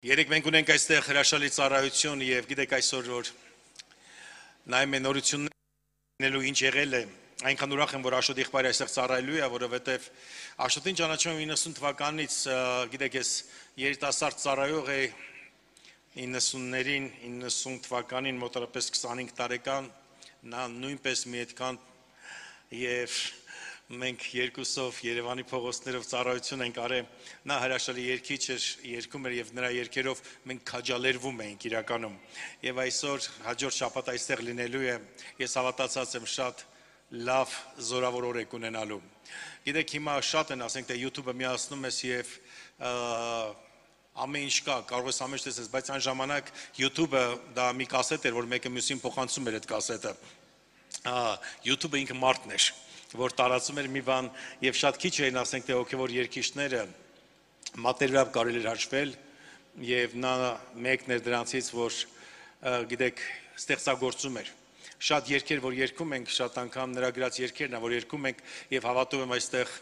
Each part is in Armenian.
Երեք մենք ունենք այստեղ հրաշալի ծառայություն եւ գիտեք այսօր որ նայում են նորություններու ինչ եղել է այնքան ուրախ եմ որ Աշոտ եղբայրը այստեղ ծառայելու է որովհետեւ Աշոտին ճանաչում եմ 90 թվականից գիտեք ես երիտասարդ ծառայող է 90-ներին 90 թվականին մոտավորապես 25 տարեկան նա նույնպես մի այդքան եւ մենք երկուսով Երևանի փողոցներով ծառայություն ենք արել նա հրաշալի երգիչ էր երգում էր եւ նրա երգերով մենք քաջալերվում էինք իրականում եւ այսօր հաջորդ շաբաթ այստեղ լինելու է ես հավատացած եմ շատ լավ զորավոր օր եք ունենալու գիտեք հիմա շատ են ասենք թե YouTube-ը միացնում ես եւ ամեն ինչ կա կարող ես ամեն ինչ տեսես բայց այն ժամանակ YouTube-ը դա մի կասետ էր որ մեկը մյուսին փոխանցում էր այդ կասետը YouTube-ը ինքը մարդն էր որ տարածում էր մի բան եւ շատ քիչ էին ասենք թե հոգեվոր երգիչները մատերիալով կարելի էր հաշվել եւ նա մեկն էր դրանցից որ գիտեք ստեղծագործում էր շատ երգեր որ երգում ենք շատ անգամ նրա գրած երգերն ա որ երգում ենք եւ հավատում եմ այստեղ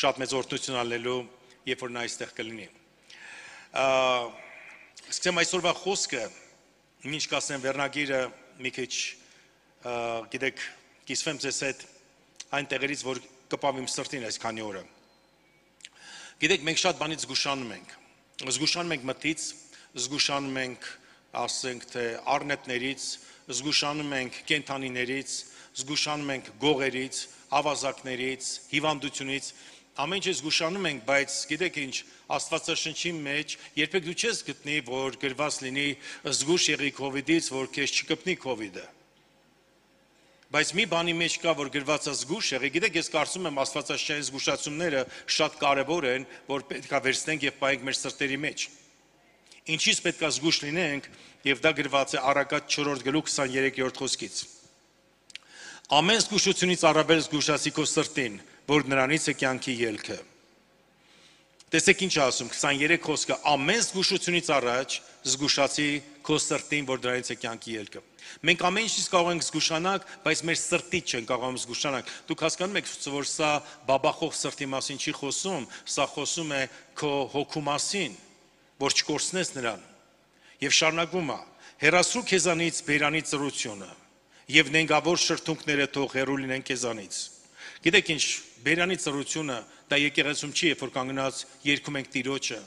շատ մեծ օրհնություն ալնելու երբ որ նա այստեղ կլինի սկսեմ այսօրվա խոսքը ինչ կասեմ վերնագիրը մի քիչ գիտեք կիսվեմ ձեզ հետ այն տեղերից, որ կպավիմ սրտին այս քանի օրը։ Գիտեք, մենք շատ բանից զգուշանում ենք։ Զգուշանում ենք մտից, զգուշանում ենք, ասենք թե առնետներից, զգուշանում ենք կենթանիներից, զգուշանում ենք գողերից, ավազակներից, հիվանդությունից, ամեն ինչ զգուշանում ենք, բայց գիտեք ինչ, Աստվածաշնչի մեջ երբեք դու չես գտնի, որ գրված լինի զգուշ եղի COVID-ից, որ քեզ չկպնի COVID-ը։ Բայց մի բանի մեջ կա, որ գրված է զգուշ եղի, գիտեք, ես կարծում եմ աստվածաշնչային զգուշացումները շատ կարևոր են, որ պետք է վերցնենք եւ պահենք մեր սրտերի մեջ։ Ինչից պետք է զգուշ լինենք, եւ դա գրված է Առակաց 4-րդ գլուխ 23-րդ խոսքից։ Ամեն զգուշությունից առավել զգուշացի քո սրտին, որ նրանից է կյանքի ելքը։ Տեսեք ինչ ասում 23 խոսքը ամեն զգուշությունից առաջ զգուշացի քո սրտին, որ դրանից է կյանքի ելքը։ Մենք ամեն ինչից կարող ենք զգուշանալ, բայց մեր սրտից չենք կարող զգուշանալ։ Դուք հասկանում եք, որ սա բաբախող սրտի մասին չի խոսում, սա խոսում է քո հոգու մասին, որ չկորցնես նրան։ Եվ շարունակվում է. հեռացրու քեզանից բերանի ծրությունը, եւ նենգավոր շրթունքները թող հեռու լինեն քեզանից։ Գիտեք ինչ, բերանի ծրությունը դա եկեղեցում չի, երբ որ կանգնած երգում ենք Տիրոջը,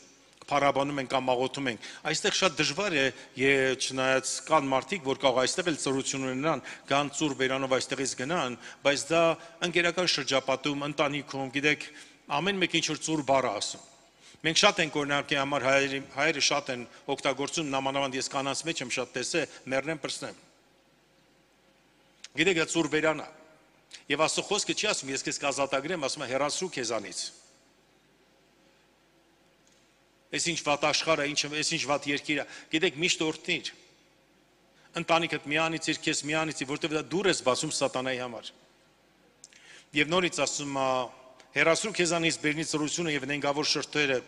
փառաբանում ենք կամ աղոթում ենք։ Այստեղ շատ դժվար է, չնայած կան մարդիկ, որ կարող այստեղ էլ ծրություն ունենան, կան ծուր բերանով այստեղից գնան, բայց դա ընկերական շրջապատում, ընտանիքում, գիտեք, ամեն մեկ ինչ որ ծուր բառ ասում։ Մենք շատ ենք օրինակի համար հայերը շատ են օգտագործում, նամանավանդ ես կանանց մեջ եմ շատ տեսել, մեռնեմ պրծնեմ։ Գիտեք, դա ծուր բերան է։ Եվ Աստծո խոսքը չի ասում, ես քեզ կազատագրեմ, ասում է հեռացրու քեզանից։ Այս ինչ վատ աշխարհը, այս ինչ վատ երկիրը, գիտեք, միշտ օրհնիր։ Ընտանիքդ միանիցիր, քեզ միանիցիր, որտեղ դա դուր ես բացում սատանայի համար։ Եվ նորից ասում է, հեռացրու քեզանից բերնի ծրությունը եւ նենգավոր շրթերը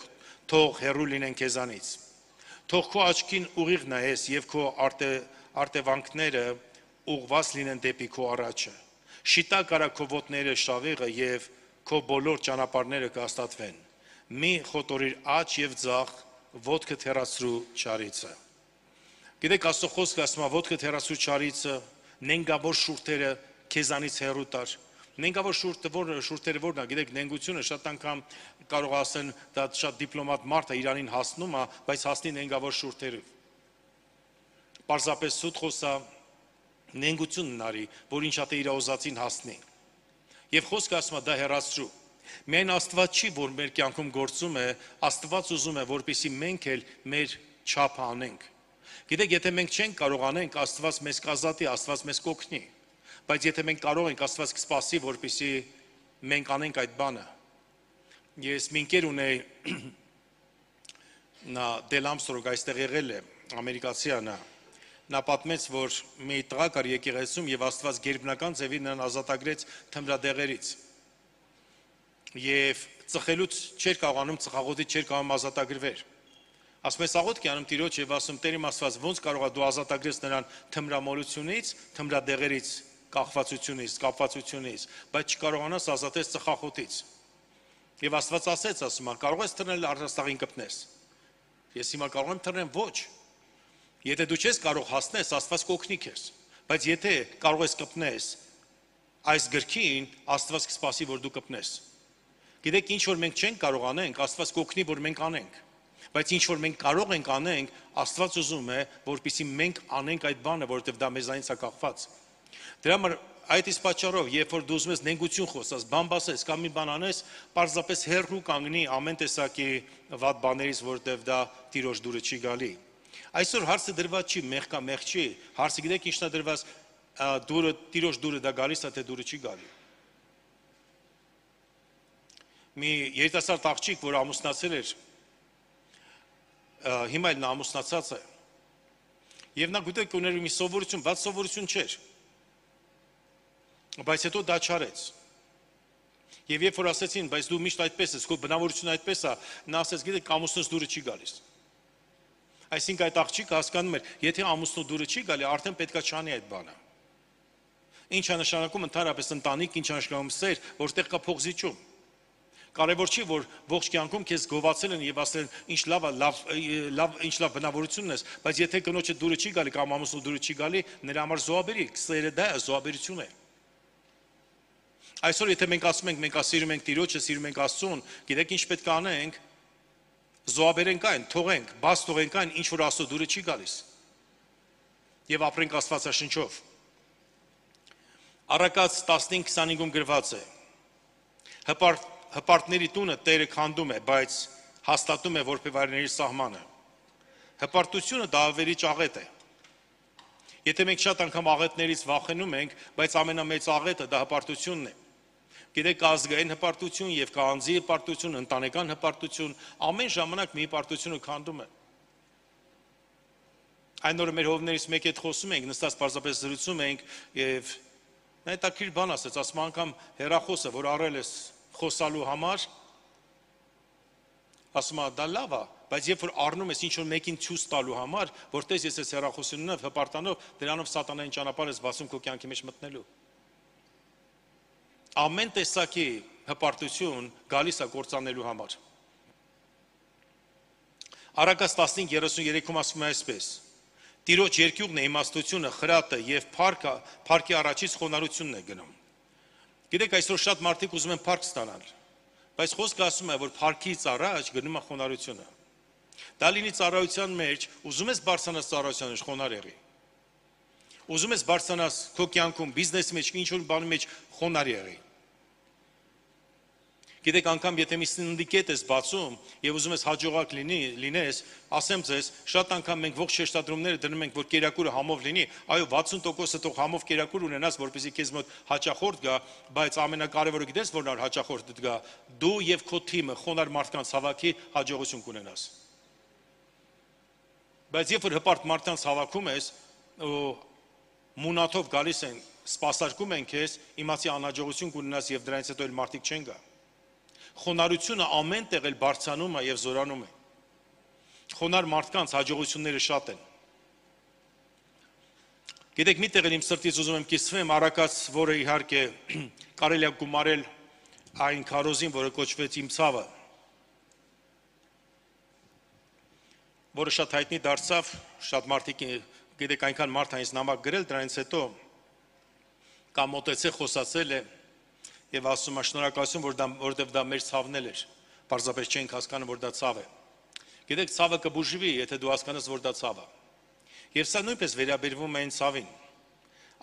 թող հեռու լինեն քեզանից։ Թող քո աչքին ուղիղ նայես եւ քո արտևանքները ուղված լինեն դեպի քո առաջը։ Շիտակ արա քո ոտները շավիղը եւ քո բոլոր ճանապարհները կհաստատվեն։ Մի խոտորիր աջ եւ ձախ, ոտքդ հեռացրու չարիցը։ Գիտեք, Աստծո խոսքը ասում է, ոտքդ հեռացրու չարիցը, նենգավոր շուրթերը քեզանից հեռու տար։ Նենգավոր շուրթերը որն է, գիտեք, նենգությունը շատ անգամ կարող ասեն, դա շատ դիպլոմատ մարդ է, իրանին հասնում է, բայց հասնի նենգավոր շուրթերով։ Պարզապես սուտ խոսա նենգություն նարի, որ ինչա թե իր ուզածին հասնի։ Եվ խոսքը ասում է դա հեռացրու։ Միայն Աստված չի, որ մեր կյանքում գործում է, Աստված ուզում է, որպեսզի մենք էլ մեր չափը անենք։ Գիտեք, եթե մենք չենք կարող անենք, Աստված մեզ կազատի, Աստված մեզ կօգնի։ Բայց եթե մենք կարող ենք, Աստված կսպասի, որպեսզի մենք անենք այդ բանը։ Ես մի ընկեր ունեի, նա Դել Ամստրոնգ այստեղ եղել է, ամերիկացի է նա։ Նա պատմեց, որ մի տղա կար եկեղեցում եւ Աստված գերբնական ձևի նրան ազատագրեց թմրադեղերից։ Եվ ծխելուց չէր կարողանում, ծխաղոտից չէր կարողանում ազատագրվեր։ Ասում ես աղոթք անում Տիրոջ եւ ասում Տեր իմ Աստված ոնց կարող է դու ազատագրես նրան թմրամոլությունից, թմրադեղերից, կախվածությունից, կապվածությունից, բայց չկարողանաս ազատես ծխախոտից։ Եվ Աստված ասեց, ասում է, կարող ես թռնել առաստաղին կպնես։ Ես հիմա կարող եմ թռնեմ, ոչ։ Եթե դու չես կարող հասնես, Աստված կօգնի քեզ, բայց եթե կարող ես կպնես այս գրքին, Աստված կսպասի, որ դու կպնես։ Գիտեք, ինչ որ մենք չենք կարող անենք, Աստված կօգնի, որ մենք անենք։ Բայց ինչ որ մենք կարող ենք անենք, Աստված ուզում է, որպեսզի մենք անենք այդ բանը, որովհետև դա մեզանից է կախված։ Դրա համար այդ իսկ պատճառով, երբ որ դու ուզում ես նենգություն խոսես, բան բասես կամ մի բան անես, պարզապես հեռու կանգնի ամեն տեսակի վատ բաներից, որովհետև դա Տիրոջ դուրը չի գալի։ Այսօր հարցը դրված չի, մեղ կա, մեղ չի։ Հարցը գիտեք ինչն է դրված, դուրը Տիրոջ դուրը դա գալիս է, թե դուրը չի գալի։ Մի երիտասարդ աղջիկ, որ ամուսնացել էր, հիմա էլ նա ամուսնացած է։ Եվ նա գիտեք ուներ մի սովորություն, վատ սովորություն չէր։ Բայց հետո դա չարեց։ Եվ երբ որ ասեցին, բայց դու միշտ այդպես ես, քո բնավորությունը այդպես է, նա ասեց, գիտեք, ամուսնուց դուրը չի գալիս։ Այսինքն այդ աղջիկը հասկանում էր, եթե ամուսնու դուրը չի գալի, արդեն պետքա չանի այդ բանը։ Ինչ է նշանակում ընդհանրապես ընտանիք, ինչ է նշանակում սեր, որտեղ կա փողզիջում։ Կարևոր չի, որ ողջ կյանքում քեզ գովացել են եւ ասել են, ինչ լավ է, ինչ լավ բնավորությունն ես, բայց եթե կնոջը դուրը չի գալի կամ ամուսնու դուրը չի գալի, նրա համար զոհաբերի, սերը դա է, զոհաբերություն է։ Այսօր եթե մենք ասում ենք, մենք սիրում ենք Տիրոջը, սիրում ենք Աստծուն, գիտեք ինչ պետք է անենք, զոհաբերենք այն, թողենք, բաց թողենք այն, ինչ որ Աստծո դուրը չի գալիս։ Եվ ապրենք Աստվածաշնչով։ Առակաց 15:25-ում գրված է. Հպարտների տունը Տերը քանդում է, բայց հաստատում է որբևարների սահմանը։ Հպարտությունը դա ավերիչ աղետ է։ Եթե մենք շատ անգամ աղետներից վախենում ենք, բայց ամենամեծ աղետը դա հպարտությունն է։ Գիտեք, կա ազգային հպարտություն եւ կա անձի հպարտություն, ընտանեկան հպարտություն, ամեն ժամանակ մի հպարտությունը քանդում է։ Այն օրը մեր հովներից մեկի հետ խոսում ենք, նստած պարզապես զրուցում ենք եւ նա հետաքրքիր բան ասեց, ասում անգամ հեռախոսը, որ առել ես խոսալու համար, ասում դա լավ է, բայց երբ որ առնում ես ինչ-որ մեկին ցույց տալու համար, որտես ես ես հեռախոսությունով, հպարտանով, դրանով սատանային ճանապարհ ես բացում քո կյանքի մեջ մտնելու։ Ամեն տեսակի հպարտություն գալիս է կործանելու համար։ Առակաց 15:33-ում ասում է այսպես. Տիրոջ երկյուղն է իմաստությունը, խրատը եւ փառքի առաջից խոնարհությունն է գնում։ Գիտեք, այսօր շատ մարդիկ ուզում են փառք ստանալ, բայց խոսքը ասում է, որ փառքից առաջ գնում է խոնարհությունը։ Դա լինի ծառայության մեջ, ուզում ես բարձրանաս ծառայության մեջ, խոնարհ եղի։ Ուզում ես բարձրանաս քո կյանքում, բիզնեսի մեջ, ինչ-որ բանի մեջ, խոնարհ եղի։ Գիտեք, անգամ եթե մի սնդիկետ ես բացում եւ ուզում ես հաջողակ լինես, ասեմ ձեզ, շատ անգամ մենք ողջ շեշտադրումները դնում ենք, որ կերակուրը համով լինի, այո 60%-ը թող համով կերակուր ունենաս, որպեսզի քեզ մոտ հաճախորդ գա, բայց ամենակարևորը գիտես որն է հաճախորդդ գա, դու եւ քո թիմը խոնարհ մարդկանց հավաքի հաջողություն կունենաս։ Բայց երբ որ հպարտ մարդկանց հավաքում ես, մունաթով գալիս են, սպասարկում են քեզ, իմացի անհաջողություն կունենաս եւ դրանից հետո էլ մարդիկ չեն գա։ Խոնարհությունը ամեն տեղ էլ բարձրանում է եւ զորանում է։ Խոնարհ մարդկանց հաջողությունները շատ են։ Գիտեք, մի տեղ էլ իմ սրտից ուզում եմ կիսվեմ, Առակաց, որը իհարկե կարելի է գումարել այն քարոզին, որը կոչվեց Իմ ցավը, որը շատ հայտնի դարձավ, շատ մարդիկ, գիտեք, այնքան մարդ այնց նամակ գրել, դրանից հետո կամ մոտեցել, խոսացել է եւ ասում է շնորհակալություն, որովհետեւ դա մեր ցավն էր, պարզապես չենք հասկանում, որ դա ցավ է։ Գիտեք, ցավը կբուժվի, եթե դու հասկանաս, որ դա ցավ է։ Եվ սա նույնպես վերաբերվում է այն ցավին։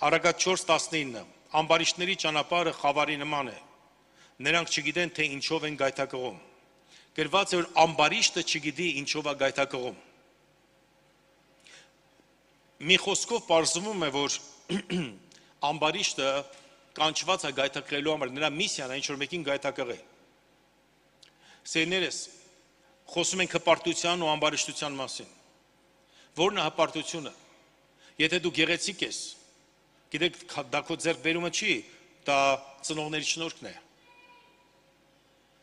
Առակաց 4:19 ամբարիշտների ճանապարհը խավարի նման է։ Նրանք չգիտեն, թե ինչով են գայթակղում։ Գրված է, որ ամբարիշտը չգիտի ինչով է գայթակղում։ Մի խոսքով պարզվում է, որ ամբարիշտը կանչված է գայթակղելու համար, նրա միսիան է ինչ-որ մեկին գայթակղել։ Սերներս, խոսում ենք հպարտության ու ամբարիշտության մասին։ Որն է հպարտությունը։ Եթե դու գեղեցիկ ես, գիտեք, դա քո ձեռքբերումը չի, դա ծնողների շնորհքն է։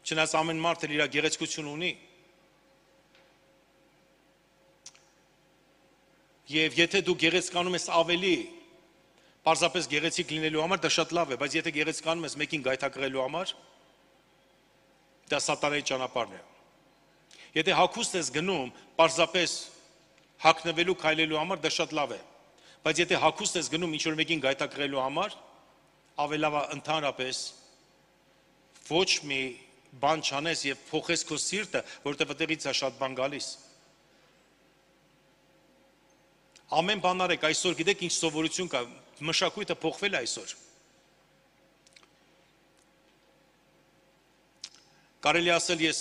Չնայած ամեն մարդ էլ իր գեղեցկություն ունի։ Եվ եթե դու գեղեցկանում ես ավելի, պարզապես գեղեցիկ լինելու համար, դա շատ լավ է, բայց եթե գեղեցկանում ես մեկին գայթակղելու համար, դա սատանայի ճանապարհն է։ Եթե հագուստ ես գնում, պարզապես հագնվելու քայլելու համար, դա շատ լավ է։ Բայց եթե հագուստ ես գնում ինչ-որ մեկին գայթակղելու համար, ավելի լավ է ընդհանրապես ոչ մի բան չանես եւ փոխես քո սիրտը, որովհետեւ այդտեղից է շատ բան գալիս։ Ամեն բան արեք, այսօր գիտեք ինչ սովորություն կա, մշակույթը փոխվել է այսօր։ Կարելի ասել ես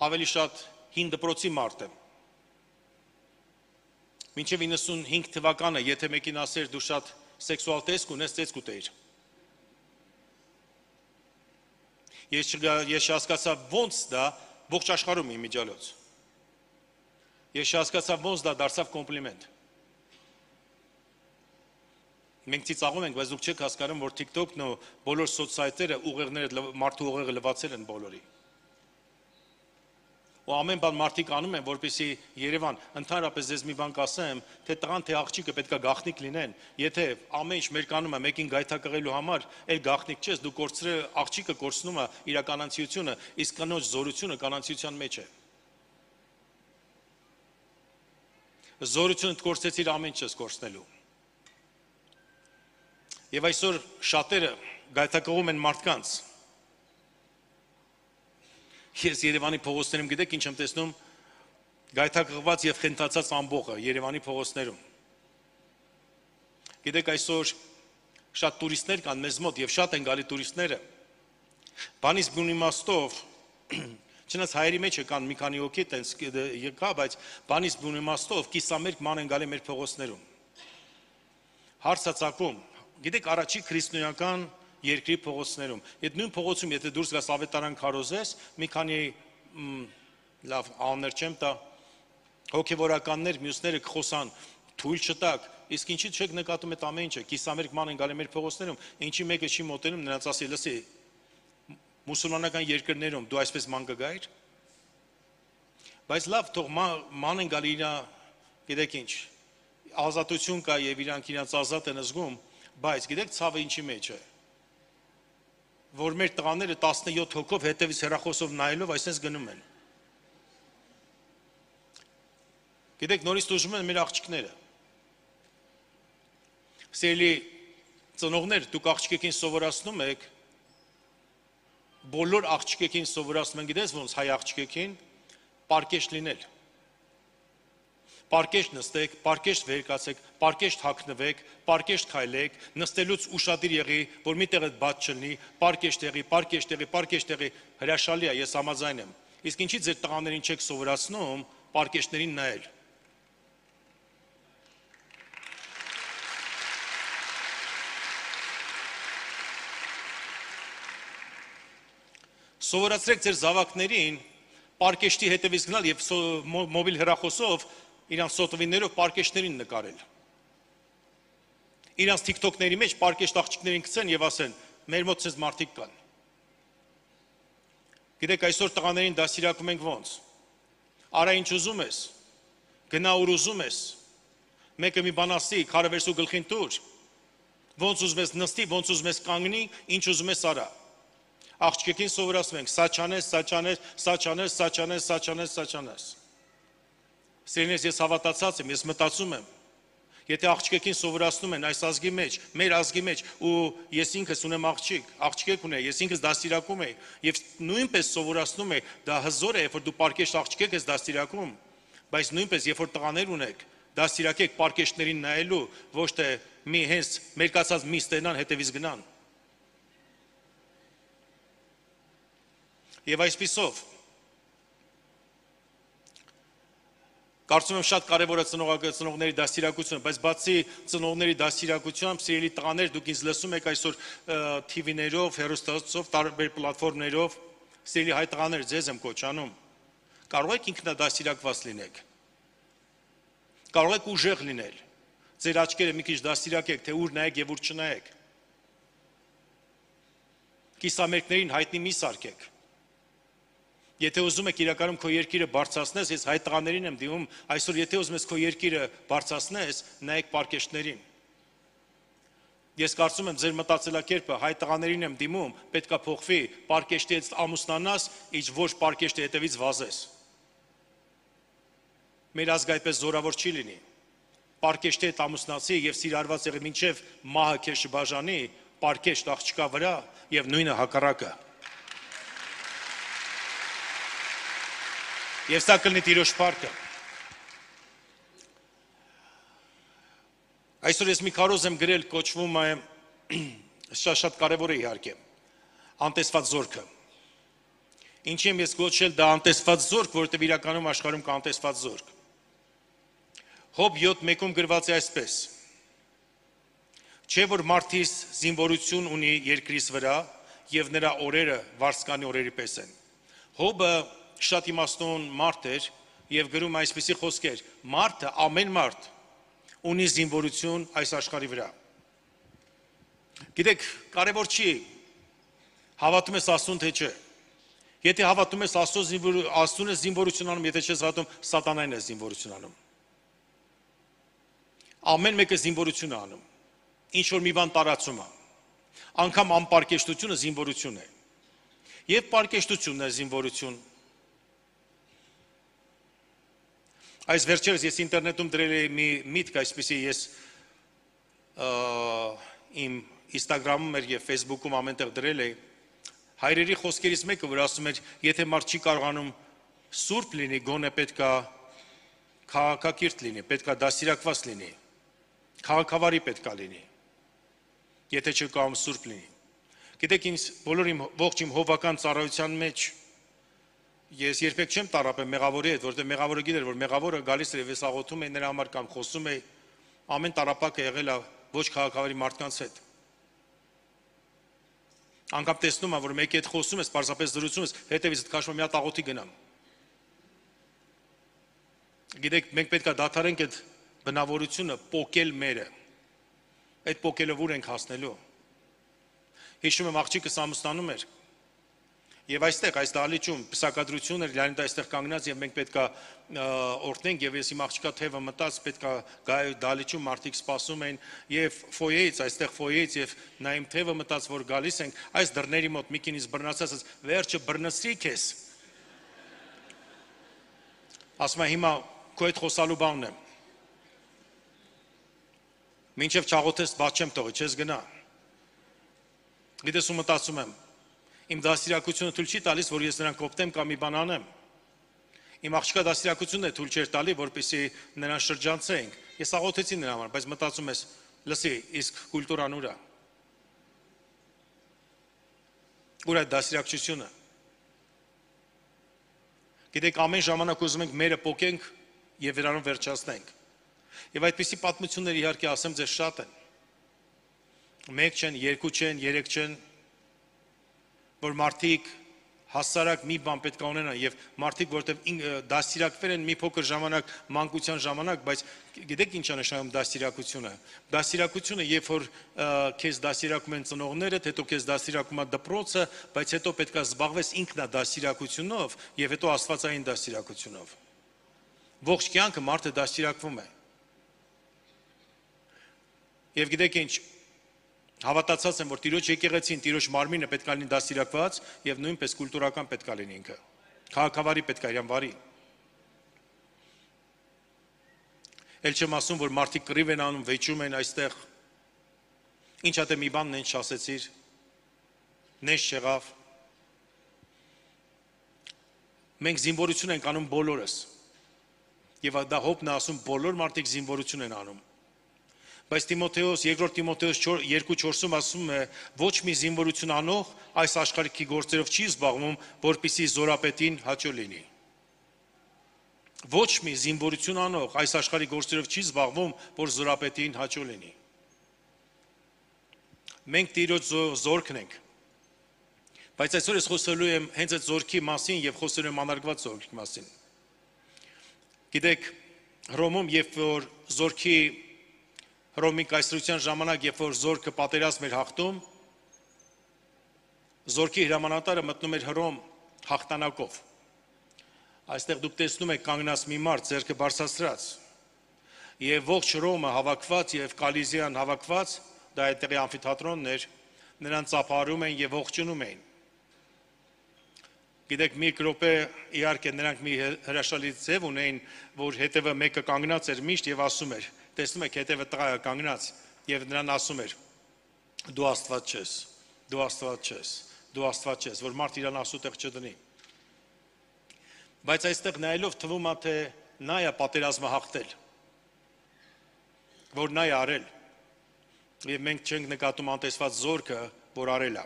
ավելի շատ հին դպրոցի մարդ եմ։ Մինչև 95 թվականը, եթե մեկին ասեր դու շատ սեքսուալ տեսք ունես, տեսք ուտեիր։ Ես հասկացա ոնց դա ողջ աշխարհում իմիջիալոց։ Ես հասկացա ոնց դա դարձավ կոմպլիմենտ։ Մենք ծիծաղում ենք, բայց դուք չեք հասկանում, որ TikTok-ն ու բոլոր սոցսայթերը ուղեղները մարդու ուղեղը լվացել են բոլորի։ Ու ամեն բան մարդիկ անում են, որպեսզի Երևան, ընդհանրապես ես մի բան կասեմ, թե տղան թե աղջիկը պետք է գաղտնիք լինեն, եթե ամեն ինչ մեր կանում է մեկին գայթակղելու համար, այլ գաղտնիք չես, դու կորցրել աղջիկը կորցնում է իր կանանցիությունը, իսկ կնոջ զորությունը կանանցիության մեջ է։ Զորությունը կորցեցիր ամեն ինչս կորցնելու։ Եվ այսօր շատերը գայթակղում են մարդկանց։ Ես Երևանի փողոցներում գիտեք ինչ եմ տեսնում, գայթակղված եւ խենթացած ամբողը Երևանի փողոցներում։ Գիտեք այսօր շատ տուրիստներ կան մեզ մոտ եւ շատ են գալի տուրիստները։ Բանից բուն իմաստով, չնայած հայերի մեջ կան մի քանի հոգի տենց եկա, բայց բանից բուն իմաստով կիսամերկ ման են գալի մեր փողոցներում։ Հարցը ցակում, գիտեք առաջի քրիստոնեական երկրի փողոցներում։ Այդ նույն փողոցում, եթե դուրս գաս ավետարան քարոզես, մի քանի լավ աններ չեմ տա, հոգևորականներ, մյուսները կխոսան, թույլ չտակ, իսկ ինչի՞ չեք նկատում այդ ամեն ինչը, կիսամերկ ման են գալի մեր փողոցներում, ինչի մեկը չի մոտենում, նրանց ասի, լսի, մուսուլմանական երկրներում դու այսպես ման կգայիր։ Բայց լավ, թող ման են գալի իրա, գիտեք ինչ, ազատություն կա եւ իրանք իրենց ազատ են զգում, բայց գիտեք ցավը ինչի մեջ է։ Որ մեր տղաները 17 հոգով հետևից հեռախոսով նայելով այսպես գնում են։ Գիտեք նորից դժում են մեր աղջիկները։ Սիրելի ծնողներ, դուք աղջիկին սովորացնում եք, բոլոր աղջիկին սովորացնում են, գիտես ոնց հայ աղջիկին, պարկեշտ լինել։ Պարկեշտ նստեք, պարկեշտ վեր կացեք, պարկեշտ հագնվեք, պարկեշտ քայլեք, նստելուց ուշադիր եղի, որ մի տեղը բաց չլինի, պարկեշտ եղի, պարկեշտ եղի, պարկեշտ եղի, հրաշալի է, ես համաձայն եմ։ Իսկ ինչի ձեր տղաներին չեք սովորացնում պարկեշտներին նայել։ Սովորացրեք ձեր զավակներին պարկեշտի հետևից գնալ եւ մոբիլ հեռախոսով իրանց սոտվիններով պարկեշտներին նկարել։ Իրանց TikTok-ների մեջ պարկեշտ աղջիկներին գցեն եւ ասեն, մեր մոտ ցես մարդիկ կան։ Գիտեք, այսօր տղաներին դասիրակում ենք ոնց։ Արա ինչ ուզում ես, գնա ուր ուզում ես, մեկը մի բան ասի, քարը վերցու գլխին տուր, ոնց ուզում ես նստի, ոնց ուզում ես կանգնի, ինչ ուզում ես արա։ Աղջիկին սովորացնում ենք, սա չանես, սա չանես, սա չանես, սա չանես, սա չանես, սա չանես։ Սիրելիներ, ես հավատացած եմ, ես մտածում եմ, եթե աղջիկին սովորացնում են այս ազգի մեջ, մեր ազգի մեջ, ու ես ինքս ունեմ աղջիկ, աղջիկ ունեմ, ես ինքս դաստիարակում եմ, եւ նույնպես սովորացնում եմ, դա հզոր է, երբ որ դու պարկեշտ աղջիկ ես դաստիարակում, բայց նույնպես երբ որ տղաներ ունեք, դաստիարակեք պարկեշտներին նայելու, ոչ թե մի հենց մերկացած մի ստենան հետևից գնան։ Եվ այսպիսով կարծում եմ շատ կարևոր է ծնողների դաստիարակությունը, բայց բացի ծնողների դաստիարակությամբ, սիրելի տղաներ, դուք ինձ լսում եք այսօր TV-ներով, հեռուստացով, տարբեր պլատֆորմներով, սիրելի հայ տղաներ, ձեզ եմ կոչանում, կարող եք ինքնադաստիարակված լինեք, կարող եք ուժեղ լինել, ձեր աչքերը մի քիչ դաստիարակեք, թե ուր նայեք եւ ուր չնայեք, կիսամերկներին հայտնի մի սարքեք։ Եթե ուզում եք իրականում քո երկիրը բարձրացնես, ես հայ տղաներին եմ դիմում, այսօր եթե ուզում ես քո երկիրը բարձրացնես, նայեք պարկեշտներին։ Ես կարծում եմ ձեր մտածելակերպը հայ տղաներին եմ դիմում, պետքա փոխվի, պարկեշտից ամուսնանաս, ինչ ոչ պարկեշտի հետևից վազես։ մեր ազգը այդպես զորավոր չի լինի։ Պարկեշտի հետ ամուսնացի եւ սիրարված եղի մինչեւ մահը քեզ շբաժանի, պարկեշտ աղջկա վրա եւ նույնը հակառակը։ Եվ սա կլինի Տիրոջ փառքը։ Այսօր ես մի քարոզ եմ գրել, կոչվում է շատ կարևոր է իհարկե, անտեսված զորքը։ Ինչի եմ ես կոչել դա անտեսված զորք, որովհետև իրականում աշխարհում կա անտեսված զորք։ Հոբ 7:1-ում գրված է այսպես. Չէ որ մարդիս զինվորություն ունի երկրիս վրա եւ նրա օրերը վարձկանի օրերի պես են։ Հոբը շատ իմաստուն մարդ էր եւ գրում այսպիսի խոսքեր. մարդը, ամեն մարդ ունի զինվորություն այս աշխարհի վրա։ Գիտեք, կարևոր չի հավատում ես Աստծուն թե չէ։ Եթե հավատում ես Աստծուն ես զինվորություն անում, եթե չես հավատում, սատանային ես զինվորություն անում։ Ամեն մեկը զինվորություն է անում, ինչ որ մի բան տարածում է, անգամ անպարկեշտությունը զինվորություն է, և պարկեշտությունն է զինվորություն։ Այս վերջերս ես ինտերնետում դրել էի մի միտք, այսպիսի ես իմ Instagram-ում էր և Facebook-ում ամենտեղ դրել էի, հայրերի խոսքերից մեկը, որ ասում էր, եթե մարդ չի կարողանում սուրբ լինի, գոնե պետք է քաղաքակիրթ լինի, պետք է դաստիարակված լինի, քաղաքավարի պետք է լինի, եթե չի կարողանում սուրբ լինի։ Գիտեք, ինձ բոլոր իմ ողջ իմ հովական ծառայության մեջ ես երբեք չեմ տառապել մեղավորի հետ, որովհետև մեղավորը գիտեր, որ մեղավորը գալիս էր եւ ես աղոթում էի նրա համար կամ խոսում էի, ամեն տառապակը եղել է ոչ քաղաքավարի մարդկանց հետ։ Անգամ տեսնում եմ, որ մեկի հետ խոսում ես, պարզապես զրուցում ես, հետևից քաշում մի հատ աղոթի գնամ։ Գիտեք, մենք պետք է դադարենք այդ բնավորությունը պոկել մերը։ Այդ պոկելով ուր ենք հասնելու։ Հիշում եմ աղջիկս ամուսնանում էր եւ այստեղ այս դահլիճում պսակադրություն էր, Լեոնիդ այստեղ կանգնած եւ մենք պետք է օրհնենք եւ ես իմ աղջկա թևը մտած, պետք է գայ դահլիճում մարդիկ սպասում էին եւ ֆոյեից, այստեղ ֆոյեից եւ նա իմ թևը մտած, որ գալիս ենք, այս դռների մոտ մի քինից բռնացած, վերջը բռնցրի քեզ։ Ասում է հիմա քո հետ խոսալու բանն եմ։ Մինչև չաղոթես բաց չեմ թողի, չես գնա։ Գիտես ու մտածում եմ, իմ դաստիարակությունը թույլ չի տալիս, որ ես նրան կոպտեմ կամ մի բան անեմ։ Իմ աղջկա դաստիարակությունն է թույլ չէր տալի, որպեսզի նրան շրջանցենք։ Ես աղոթեցի նրա համար, բայց մտածում ես, լսի, իսկ կուլտուրան ուր է։ Ուր է դաստիարակությունը։ Գիտեք, ամեն ժամանակ ուզում ենք մերը պոկենք եւ նրանով վերջացնենք։ Եվ այդպիսի պատմություններ իհարկե ասեմ ձեզ շատ են։ Մեկ չեն, երկու չեն, երեք չեն, որ մարդիկ հասարակ մի բան պետք է ունենան եւ մարդիկ, որտեղ դաստիարակվել են մի փոքր ժամանակ, մանկության ժամանակ, բայց գիտեք ինչ է նշանակում դաստիարակությունը։ Դաստիարակությունը, երբ որ քեզ դաստիարակում են ծնողներդ, հետո քեզ դաստիարակում է դպրոցը, բայց հետո պետք է զբաղվես ինքնադաստիարակությունով եւ հետո աստվածային դաստիարակությունով։ Ողջ կյանքը մարդը դաստիարակվում է։ Եվ գիտեք ինչ, հավատացած եմ, որ Տիրոջ եկեղեցին, Տիրոջ մարմինը պետք է լինի դաստիարակված եւ նույնպես կուլտուրական պետք է լինի ինքը։ Քաղաքավարի պետք է իրան վարի։ Էլ չեմ ասում, որ մարդիկ կռիվ են անում, վեճում են այստեղ։ Ինչ ա դե մի բան նենց չասեցիր։ Նենց չեղավ։ Մենք զինվորություն ենք անում բոլորս։ Եվ դա Հոբն է ասում, բոլոր մարդիկ զինվորություն են անում։ Բայց Տիմոթեոս, երկրորդ Տիմոթեոս 2:4-ում ասում է, ոչ մի զինվորություն անող այս աշխարհի գործերով չի զբաղվում, որպեսզի զորապետին հաճո լինի։ Ոչ մի զինվորություն անող այս աշխարհի գործերով չի զբաղվում, որ զորապետին հաճո լինի։ Մենք Տիրոջ զորքն ենք։ Բայց այսօր ես խոսելու եմ հենց այդ զորքի մասին եւ խոսելու եմ անարգված զորքի մասին։ Գիտեք, Հռոմում, երբ որ զորքի Հռոմի կայսրության ժամանակ, երբ որ զորքը պատերազմ էր հաղթում, զորքի հրամանատարը մտնում էր Հռոմ հաղթանակով։ Այստեղ դուք տեսնում եք կանգնած մի մարդ ձեռքը բարձրացրած, եւ ողջ Հռոմը հավաքված եւ Կալիզիան հավաքված, դա այդտեղի ամֆիթատրոնն էր, նրան ծափարում էին եւ ողջունում էին։ Գիտեք, մի րոպե իհարկե նրանք մի հրաշալի ձև ունեին, որ հետևը մեկը կանգնած էր միշտ եւ ասում էր, տեսնում եք հետևը տղա է կանգնած եւ նրան ասում էր. դու Աստված չես, դու Աստված չես, դու Աստված չես, որ մարդ իրան ասուտեղ չդնի։ Բայց այստեղ նայելով թվում է, թե նա է պատերազմը հաղթել, որ նա է արել, եւ մենք չենք նկատում անտեսված զորքը, որ արել է,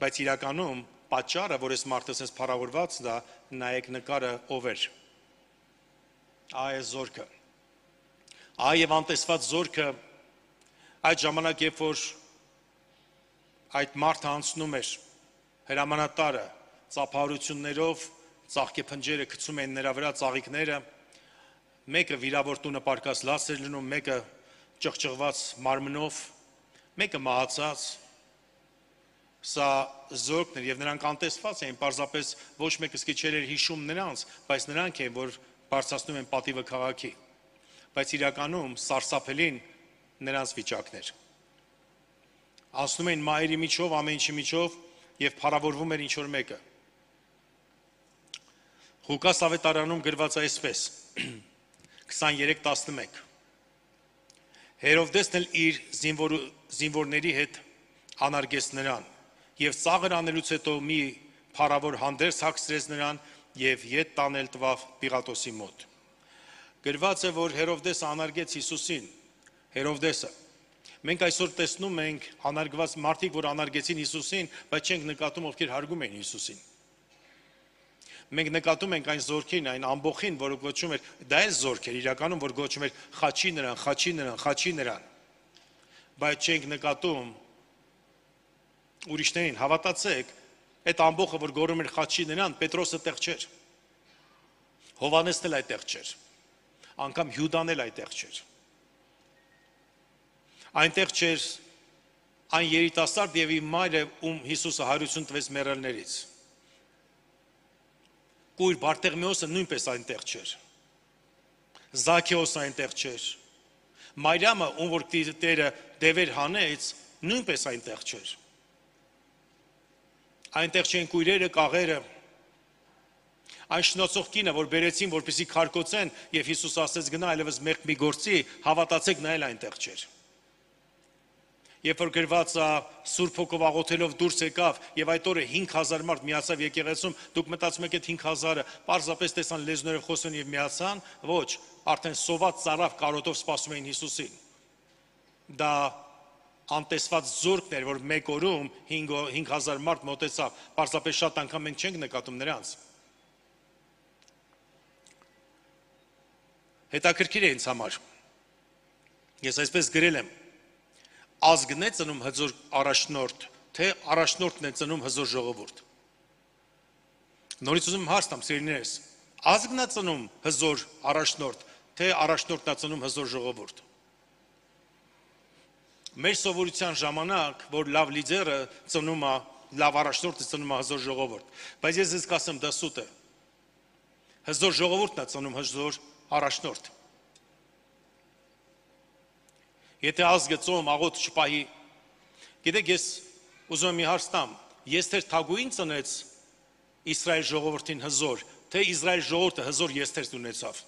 բայց իրականում պատճառը, որ այս մարդը sense փառավորված դա, նայեք նկարը ով էր։ Այ է զորքը։ Այ եւ անտեսված զորքը այդ ժամանակ, երբ որ այդ մարդը անցնում էր հրամանատարը ծափահարություններով, ծաղկե փնջերը գցում են նրա վրա ծաղիկները, մեկը վիրավոր տունը պարկած լաց էր լինում, մեկը ճղճղված մարմնով, մեկը մահացած, սա զորքն էր եւ նրանք անտեսված էին, պարզապես ոչ մեկը սկի չէր հիշում նրանց, բայց նրանք են, որ բարձրացնում են պատիվը քաղաքի, բայց իրականում սարսափելին նրանց վիճակն էր։ Անցնում էին մայրի միջով, ամեն ինչի միջով եւ փառավորվում էր ինչ որ մեկը։ Ղուկաս ավետարանում գրված է այսպես 23:11 Հերովդեսն էլ իր զինվորների հետ անարգեց նրան եւ ծաղր անելուց հետո մի փառավոր հանդերձ հագցրեց նրան եւ ետ տանել տվավ Պիղատոսի մոտ։ Գրված է, որ Հերովդեսը անարգեց Հիսուսին, Հերովդեսը։ Մենք այսօր տեսնում ենք անարգված մարդիկ, որ անարգեցին Հիսուսին, բայց չենք նկատում, ովքեր հարգում են Հիսուսին։ Մենք նկատում ենք այն զորքին, այն ամբողջին, որը գոչում էր, դա է զորք էր իրականում, որ գոչում էր խաչի նրան, խաչի նրան, խաչի նրան։ Բայց չենք նկատում ուրիշներին, հավատացեք, այդ ամբողջը, որ գոռում էր խաչի նրան, Պետրոսը տեղ չէր։ Հովհաննեսն էլ այդտեղ չէր։ Անգամ Հյուդան էլ այդտեղ չէր։ Այնտեղ չէր այն երիտասարդ եւ իր մայրը, ում Հիսուսը հարություն տվեց մեռելներից։ Կույր Բարտեղմեոսը նույնպես այնտեղ չէր։ Զաքեոսը այնտեղ չէր։ Մարիամը, ում որ Տերը դևեր հանեց, նույնպես այնտեղ չէր։ Այնտեղ չեն կույրերը, կաղերը։ Այն շնոցող կինը, որ բերեցին, որպեսզի քարկոծեն, եւ Հիսուս ասեց գնա այլևս մեղք մի գործի, հավատացեք, նա էլ այնտեղ չէր։ Երբ որ գրված է Սուրբ Հոգով աղոթելով դուրս եկավ եւ այդ օրը 5000 մարդ միացավ եկեղեցում, դուք մտածում եք այդ 5000-ը պարզապես տեսան լեզուները խոսեն եւ միացան, ոչ, արդեն սոված ծարավ կարոտով սպասում էին Հիսուսին։ Դա անտեսված զորքն էր, որ մեկ օրում 5000 մարդ մոտեցավ, պարզապես շատ անգամ մենք չենք նկատում նրանց։ Հետաքրքիր է ինձ համար։ Ես այսպես գրել եմ. ազգն է ծնում հզոր առաջնորդ, թե առաջնորդն է ծնում հզոր ժողովուրդ։ Նորից ուզում հարց տամ, սիրելիներս, ազգն է ծնում հզոր առաջնորդ, թե առաջնորդն է ծնում հզոր ժողովուրդ։ Մեր սովորության ժամանակ, որ լավ լիդերը ծնում է, լավ առաջնորդը ծնում է հզոր ժողովուրդ, բայց ես ձեզ կասեմ, դա սուտ է։ Հզոր ժողովուրդն է ծնում հզոր առաջնորդ։ Եթե ազգը ծոմ աղոթ չպահի, գիտեք, ես ուզում եմ մի հարց տամ, Եստեր թագուհին ծնեց Իսրայել ժողովրդին հզոր, թե Իսրայել ժողովուրդը հզոր Եստեր ունեցավ։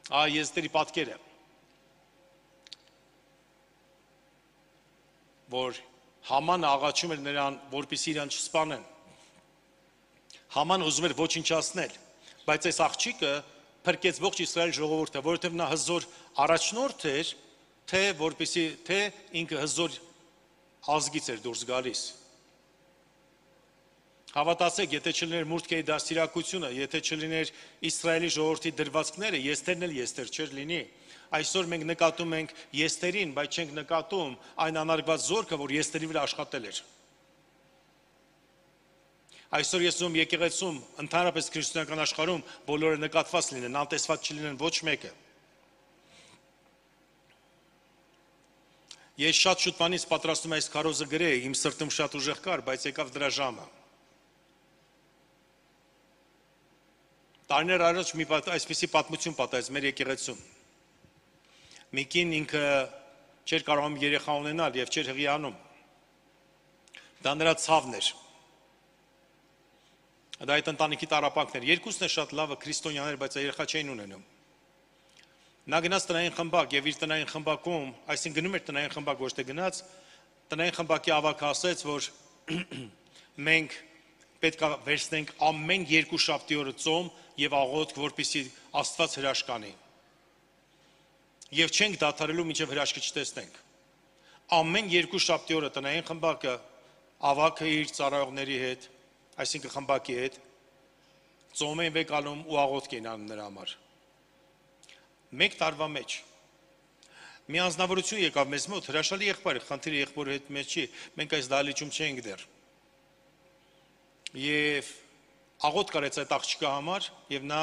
Եստերի պատկերը, որ Համանը աղաչում էր նրան, որպեսզի իրան չսպանեն։ Haman ուզում էր ոչնչացնել, բայց այս աղջիկը փրկեց ողջ Իսրայել ժողովուրդը, որովհետև նա հզոր առաջնորդ էր, թե որպեսզի թե ինքը հզոր ազգից էր դուրս գալիս։ Հավատացեք, եթե չլիներ Մուրդկեի դաստիարակությունը, եթե չլիներ Իսրայելի ժողովրդի դրվածքները, Եստերն էլ Եստեր չէր լինի։ Այսօր մենք նկատում ենք Եստերին, բայց չենք նկատում այն անարգված զորքը, որ Եստերի վրա աշխատել էր։ Այսօր ես ուզում եկեղեցում, ընդհանրապես քրիստոնեական աշխարհում բոլորը նկատված լինեն, անտեսված չլինեն ոչ մեկը։ Ես շատ շուտ բանից պատրաստում այս քարոզը գրեի, իմ սրտում շատ ուժեղ կար, բայց եկավ դրա ժամը։ Տարիներ առաջ մի այսպիսի պատմություն պատահեց մեր եկեղեցում։ Մի կին ինքը չէր կարողանում երեխա ունենալ եւ չէր հղիանում։ Դա նրա ցավն էր։ Դա այդ ընտանիքի տառապանքն էր։ Երկուսն է շատ լավը քրիստոնյաներ, բայց երեխա չէին ունենում։ Նա գնաց տնային խմբակ եւ իր տնային խմբակում, այսինքն գնում էր տնային խմբակ, ոչ թե գնաց, տնային խմբակի ավագը ասեց, որ մենք պետք է վերցնենք ամեն երկուշաբթի օրը ծոմ եւ աղոթք, որպեսզի Աստված հրաշք անի։ Եվ չենք դադարելու մինչև հրաշքը չտեսնենք։ Ամեն երկուշաբթի օրը տնային խմբակը ավագը իր ծառայողների հետ, այսինքն խմբակի հետ, ծոմ են վեկալում ու աղոթք են անում նրա համար։ Մեկ տարվա մեջ մի անձնավորություն եկավ մեզ մոտ, հրաշալի եղբայր, խնդիրը եղբորի հետ մեծ չի, մենք այս դահլիճում չենք դեռ։ Եվ աղոթք կարեց այդ աղջկա համար, եւ նա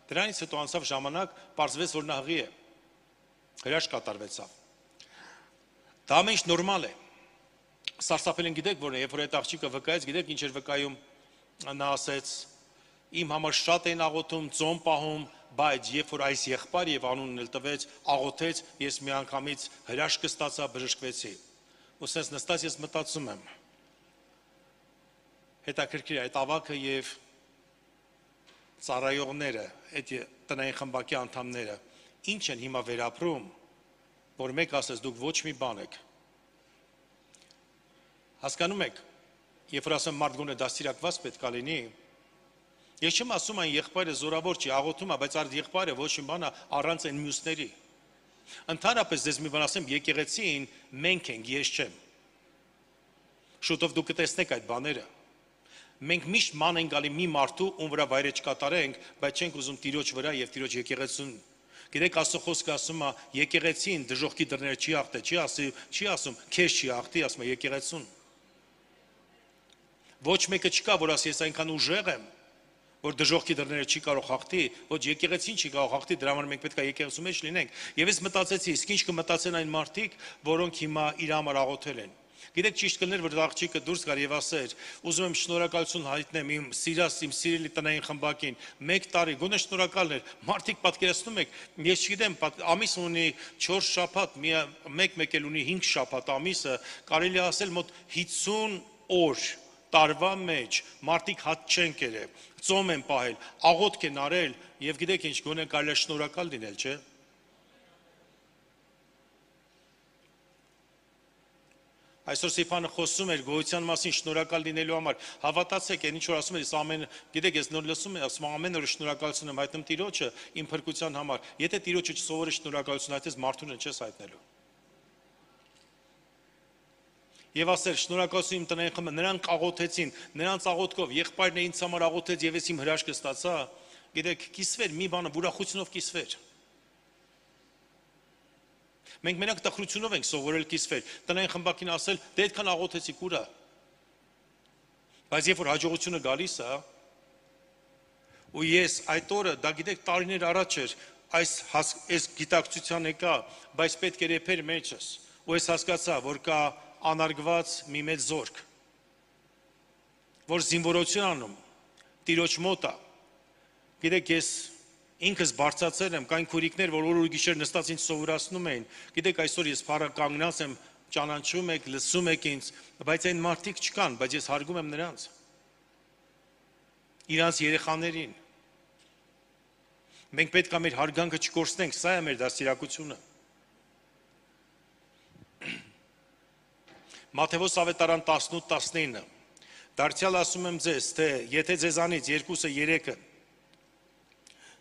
դրանից հետո անցավ ժամանակ, պարզվեց, որ նա հղի է։ Հրաշք կատարվեցավ։ Դա ամեն ինչ նորմալ է։ Սարսափելին գիտեք որ երբ որ այդ աղջիկը վկայեց, գիտեք ինչ էր վկայում, նա ասեց. իմ համար շատ են աղոթում, ծոմ պահում, բայց երբ որ այս եղբայրը եւ անունն էլ տվեց, աղոթեց, ես միանգամից հրաշքը ստացա, բժշկվեցի։ Ու sense նստած ես մտածում եմ. հետաքրքիր այդ ավակը եւ ծառայողները, այդ տնային խմբակի անդամները, ինչ են հիմա վերապրում, որ մեկ ասես դուք ոչ մի բան եք։ Հասկանում եք, երբ որ ասեմ մարդ գոնե դաստիարակված պետք է լինի, ես չեմ ասում այն եղբայրը զորավոր չի, աղոթում է, բայց այդ եղբայրը ոչ մի բան առանց այն մյուսների։ Ընդհանրապես ձեզ մի բան ասեմ, եկեղեցին մենք ենք, ես չեմ։ Շուտով դուք կտեսնեք այդ բաները։ Մենք միշտ ման ենք գալի մի մարդու, ում վրա վայրեջ կատարենք, բայց չենք ուզում Տիրոջ վրա եւ Տիրոջ եկեղեցուն։ Գիտեք, Աստծո խոսքը ասում է, եկեղեցին դժոխքի դռները չի աղտե, չի ասում, քեզ չի աղտի, ասում է եկեղեցուն։ Ոչ մեկը չկա, որ ասի, ես այնքան ուժեղ եմ, որ դժոխքի դռները չի կարող հաղթի, ոչ եկեղեցին չի կարող հաղթի, դրա համար մենք պետք է եկեղեցու մեջ լինենք։ Եվ ես մտածեցի, իսկ ինչ կմտածեն այն մարդիկ, որոնք հիմա իր համար աղոթել են։ Գիտեք, ճիշտ կներ, որ աղջիկը դուրս գար եւ ասեր, ուզում եմ շնորհակալություն հայտնեմ իմ սիրելի տնային խմբակին, 1 տարի, գոնե շնորհակալն էր, մարդիկ պատկերացնում եք, ես չգիտեմ, ամիս ունի 4 շաբաթ, մեկ էլ ունի 5 շաբաթ ամիսը, կարելի ասել մոտ 50 օր տարվա մեջ մարդիկ հատ չեն կերել, ծոմ են պահել, աղոթք են արել եւ գիտեք ինչ, գոնե կարելի է շնորհակալ լինել, չէ՞։ Այսօր Սիփանը խոսում էր գոյության մասին շնորհակալ լինելու համար։ Հավատացեք, այն ինչ որ ասում ես ամեն, գիտեք, ես նոր լսում եմ, ասում ամեն օր շնորհակալություն եմ հայտնում Տիրոջը իմ փրկության համար։ Եթե Տիրոջը չսովորես շնորհակալություն հայտնես, մարդուն չես հայտնելու։ Եվ ասեր շնորհակալություն իմ տնային խմբը, նրանք աղոթեցին, նրանց աղոթքով եղբայրն ինձ համար աղոթեց եւ ես իմ հրաշքը ստացա։ Գիտեք, կիսվեր մի բանը, ուրախությունով կիսվեր։ Մենք մենակ տխրությունով ենք սովորել կիսվել, տնային խմբակին ասել, դե այդքան աղոթեցիք ուրա։ Բայց երբ որ հաջողությունը գալիս է, ու ես այդ օրը, դա գիտեք տարիներ առաջ էր, այս գիտակցության եկա, բայց պետք էր եփեր մեջս, ու ես հասկացա, որ կա անարգված մի մեծ զորք, որ զինվորություն անում, Տիրոջ մոտ է։ Գիտեք, ես ինքս բարձացել եմ, կային քուրիկներ, որ օր ու գիշեր նստած ինձ սովորացնում էին։ Գիտեք, այսօր ես փառը կանգնած եմ, ճանաչում եք, լսում եք ինձ, բայց այն մարդիկ չկան, բայց ես հարգում եմ նրանց։ Իրանց երեխաներին։ Մենք պետք է մեր հարգանքը չկորցնենք, սա է մեր դաստիարակությունը։ Մատթեոս ավետարան 18:19 Դարձյալ ասում եմ ձեզ, թե եթե ձեզանից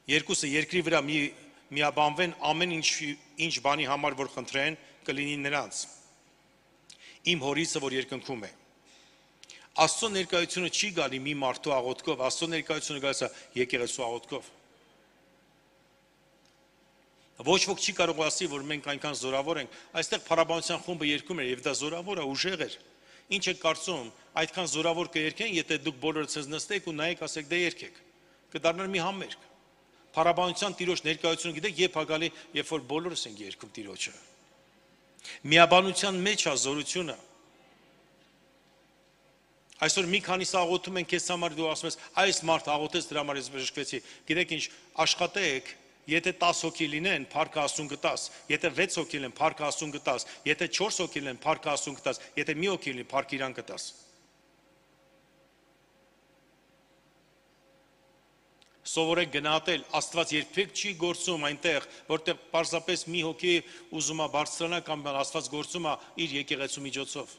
երկուսը երկրի վրա միաբանվեն ամեն ինչ բանի համար, որ խնդրեն, կլինի նրանց։ Իմ հորիցը, որ երկնքում է։ Աստծո ներկայությունը չի գալի մի մարդու աղոթքով, Աստծո ներկայությունը գալիս է եկեղեցու աղոթքով։ Ոչ ոք չի կարող ասի, որ մենք այնքան զորավոր ենք, այստեղ փառաբանության խումբը երգում էր եւ դա զորավոր է, ուժեղ էր։ Ինչ եք կարծում, այդքան զորավոր կերկեն, եթե դուք բոլորը ցեզ նստեք ու նայեք, ասեք դե երգեք։ Կդառնար մի համերգ։ Փառաբանության Տիրոջ ներկայությունը գիտեք, երբ է գալի, երբ որ բոլորս ենք երգում Տիրոջը։ Միաբանության մեջ է զորությունը։ Այսօր մի քանիս աղոթում են քեզ համար, դու ասում ես, այս մարդ աղոթեց, դրա համար ես բժշկվեցի։ Գիտեք ինչ, աշխատեք, եթե 10 հոգի լինեն, փառքը Աստծուն կտաս, եթե 6 հոգի լինեն, փառքը Աստծուն կտաս, եթե 4 հոգի լինեն, փառքը Աստծուն կտաս, եթե մի հոգի լինի, փառքը իրան կտաս։ Սովորեք գնահատել, Աստված երբեք չի գործում այնտեղ, որտեղ պարզապես մի հոգի ուզում է բարձրանալ կամ Աստված գործում է իր եկեղեցու միջոցով։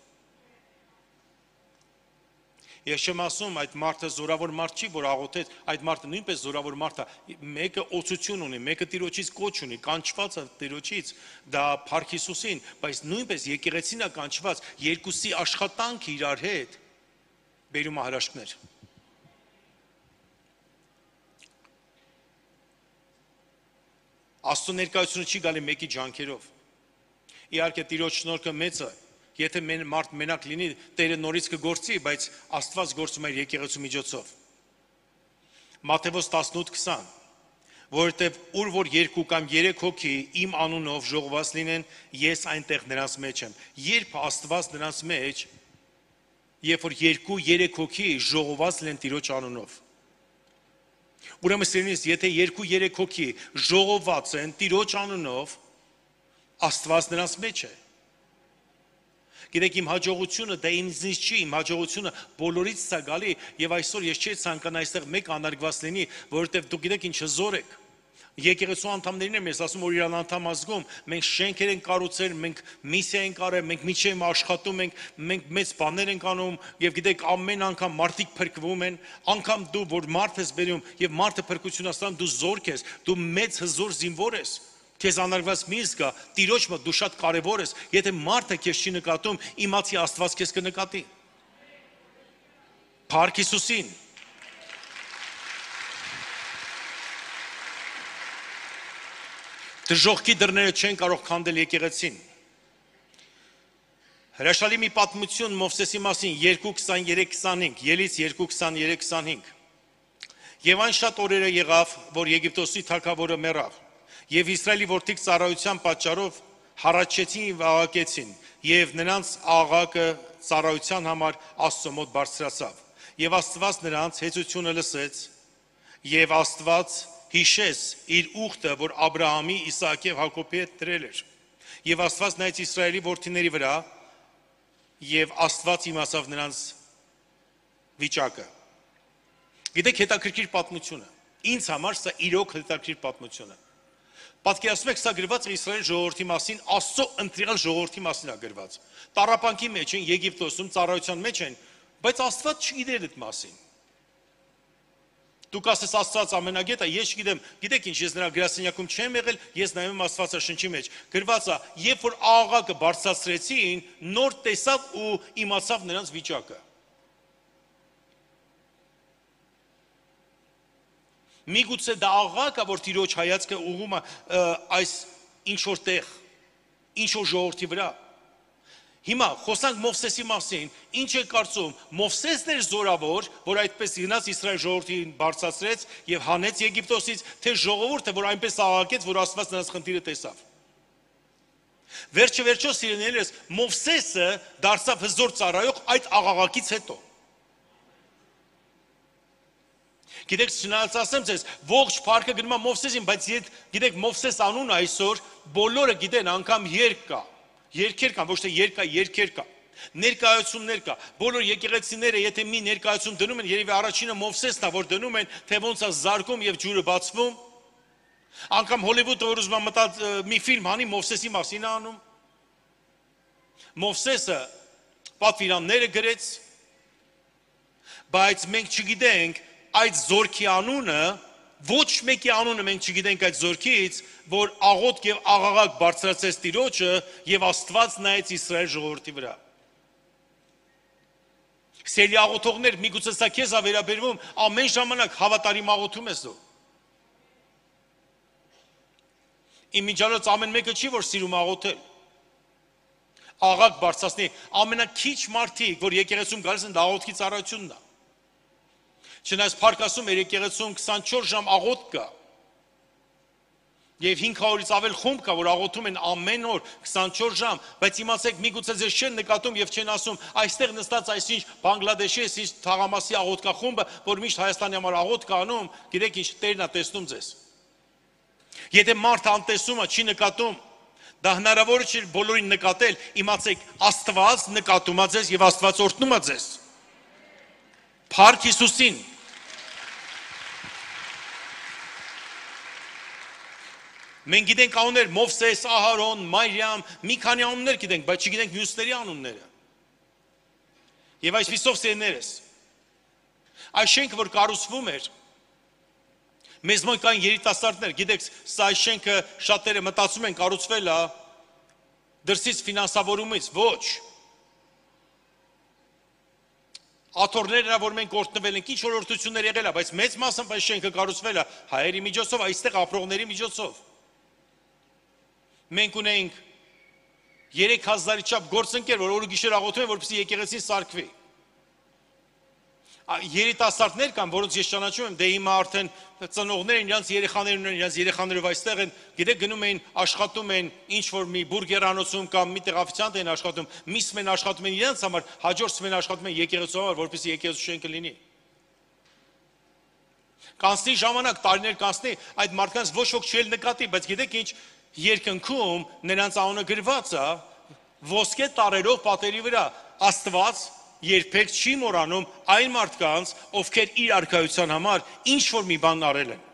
Ես չեմ ասում այդ մարդը զորավոր մարդ չի, որ աղոթեց, այդ մարդը նույնպես զորավոր մարդ է, մեկը օծություն ունի, մեկը Տիրոջից կոչ ունի, կանչված է Տիրոջից, դա Փառք Հիսուսին, բայց նույնպես եկեղեցին է կանչված, երկուսի աշխատանքը իրար հետ բերում է հրաշքներ։ Աստծո ներկայությունը չի գալի մեկի ջանքերով։ Իհարկե Տիրոջ շնորհքը մեծ է, եթե մարդ մենակ լինի, Տերը նորից կգործի, բայց Աստված գործում է իր եկեղեցու միջոցով։ Մատթեոս 18:20, որովհետև ուր որ 2 կամ 3 հոգի իմ անունով ժողոված լինեն, ես այնտեղ նրանց մեջ եմ։ Երբ Աստված նրանց մեջ, երբ որ 2-3 հոգի ժողոված լինեն Տիրոջ անունով։ Ուրեմն սիրելիներ, եթե 2-3 հոգի ժողոված են Տիրոջ անունով, Աստված նրանց մեջ է։ Գիտեք, իմ հաջողությունը դա ինձնից չի, իմ հաջողությունը բոլորից է գալի, եւ այսօր ես չի ցանկանա այստեղ մեկ անարգված լինի, որովհետեւ դուք գիտեք ինչ հզոր եք։ Եկեղեցու անդամներին եմ ես ասում, որ իրան անդամ ազգում, մենք շենքեր ենք կառուցել, մենք միսիա ենք արել, մենք միջև աշխատում ենք, մենք մեծ բաներ ենք անում, եւ գիտեք, ամեն անգամ մարդիկ փրկվում են, անգամ դու որ մարդ ես բերում եւ մարդը փրկություն աստանում, դու զորք ես, դու մեծ հզոր զինվոր ես։ Քեզ անարգված մի զգա, Տիրոջ մոտ դու շատ կարևոր ես, եթե մարդը քեզ չի նկատում, իմացի Աստված քեզ կնկատի։ Փառք Հիսուսին։ Դժոխքի դռները չեն կարող քանդել եկեղեցին։ Հրաշալի մի պատմություն Մովսեսի մասին 2:23-25, Ելից 2:23-25։ Եվ այն շատ օրերը եղավ, որ Եգիպտոսի թագավորը մեռավ, եւ Իսրայելի որդիք ծառայության պատճառով հառաչեցին եւ աղաղակեցին, եւ նրանց աղաղակը ծառայության համար Աստծո մոտ բարձրացավ։ Եվ Աստված նրանց հեծությունը լսեց, եւ Աստված հիշեց իր ուխտը, որ Աբրահամի, Իսահակի եւ Հակոբի հետ դրել էր։ Եվ Աստված նայեց Իսրայելի որդիների վրա, եւ Աստված իմացավ նրանց վիճակը։ Գիտեք, հետաքրքիր պատմություն է։ Ինձ համար սա իրոք հետաքրքիր պատմություն է։ Պատկերացնում եք, սա գրված է Իսրայել ժողովրդի մասին, Աստծո ընտրյալ ժողովրդի մասին է գրված։ Տառապանքի մեջ են, Եգիպտոսում ծառայության մեջ են, բայց Աստված չգիտեր այդ մասին։ Դուք ասես Աստված ամենագետ է, ես չգիտեմ, գիտեք ինչ, ես նրա գրասենյակում չեմ եղել, ես նայում եմ Աստվածաշնչի մեջ։ Գրված է, երբ որ աղաղակը բարձրացրեցին, նոր տեսավ ու իմացավ նրանց վիճակը։ Միգուցե դա աղաղակը, որ Տիրոջ հայացքը ուղղում է այս ինչ որ տեղ, ինչ որ ժողովրդի վրա։ Հիմա խոսանք Մովսեսի մասին, ինչ է կարծում, Մովսեսն էր զորավոր, որ այդպես գնաց Իսրայել ժողովրդին բարձրացրեց եւ հանեց Եգիպտոսից, թե ժողովուրդը, որ այնպես աղաղակեց, որ Աստված նրանց խնդիրը տեսավ։ Վերջը սիրելիներս, Մովսեսը դարձավ հզոր ծառայող այդ աղաղակից հետո։ Գիտեք, չնայած ասեմ ձեզ, ողջ փառքը գնում է Մովսեսին, բայց գիտեք, Մովսես անունը այսօր բոլորը գիտեն, անգամ երկ կա, երգեր կան, ոչ թե երկ կա, երգեր կա, ներկայացումներ կա, բոլոր եկեղեցիները, եթե մի ներկայացում դնում են, երևի առաջինը Մովսեսն է, որ դնում են, թե ոնց է զարկում եւ ջուրը բացվում, անգամ Հոլիվուդը որ ուզում է մտած մի ֆիլմ անի Մովսեսի մասին է անում, Մովսեսը պատվիրանները գրեց, բայց մենք չգիտենք այդ զորքի անունը, ոչ մեկի անունը մենք չգիտենք այդ զորքից, որ աղոթք եւ աղաղակ բարձրացեց Տիրոջը եւ Աստված նայեց Իսրայել ժողովրդի վրա։ Սիրելի աղոթողներ, միգուցե սա քեզ է վերաբերվում, ամեն ժամանակ հավատարիմ աղոթում ես դու։ Իմ միջալոց ամեն մեկը չի, որ սիրում աղոթել։ Աղաղակ բարձրացնի, ամենակիչ մարդիկ, որ եկեղեցում գալիս են, դա աղոթքի ծառայությունն է։ Չնայած Փառք ասում էր եկեղեցում 24 ժամ աղոթք կա։ Եվ 500-ից ավել խումբ կա, որ աղոթում են ամեն օր 24 ժամ, բայց իմացեք, միգուցե ձեզ չեն նկատում եւ չեն ասում, այստեղ նստած այսինչ Բանգլադեշի, այսինչ Թաղամասի աղոթքախումբը, որ միշտ Հայաստանի համար աղոթք անում, գիտեք ինչ, Տերն է տեսնում ձեզ։ Եթե մարդը անտեսում է, չի նկատում, դա հնարավոր չէ բոլորին նկատել, իմացեք, Աստված նկատում է ձեզ եւ Աստված օրհնում է ձեզ։ Փառք Հիսուսին։ Մենք գիտենք անուններ Մովսես, Ահարոն, Մարիամ, մի քանի անուններ գիտենք, բայց չգիտենք մյուսների անունները։ Եվ այսպիսով սերներս, այս շենքը, որ կառուցվում էր, մեզ մոտ կային երիտասարդներ, գիտեք, սա այս շենքը շատերը մտածում են կառուցվել է դրսից ֆինանսավորումից, ոչ։ Աթոռներն որ մենք օրտնվել ենք, ինչ օրհնություններ եղել է, բայց մեծ մասամբ այս շենքը կառուցվել է հայերի միջոցով, այստեղ ապրողների միջոցով։ Մենք ունենք 3000-ի չափ գործընկեր, որ օրը գիշեր աղոթում են, որպեսզի եկեղեցին սարքվի։ Երիտասարդներ կան, որոնց ես ճանաչում եմ, դե հիմա արդեն ծնողներ իրենց երեխաներն ունեն, իրենց երեխաներով այստեղ են, գիտեք գնում են, աշխատում են ինչ որ մի բուրգերանոցում կամ մի տեղ օֆիցիանտ են աշխատում, միսմ են աշխատում են իրենց համար, հաջորդում են աշխատում են եկեղեցու համար, որպեսզի եկեղեցու շենքը լինի։ Կանցնի ժամանակ, տարիներ կանցնի, այդ մարդկանց ոչ ոք չի նկատի, բայց գիտեք ինչ, երկնքում նրանց անունը գրված է ոսկե տարերով պատերի վրա, Աստված երբեք չի մոռանում այն մարդկանց, ովքեր իր արքայության համար ինչ որ մի բան արել են։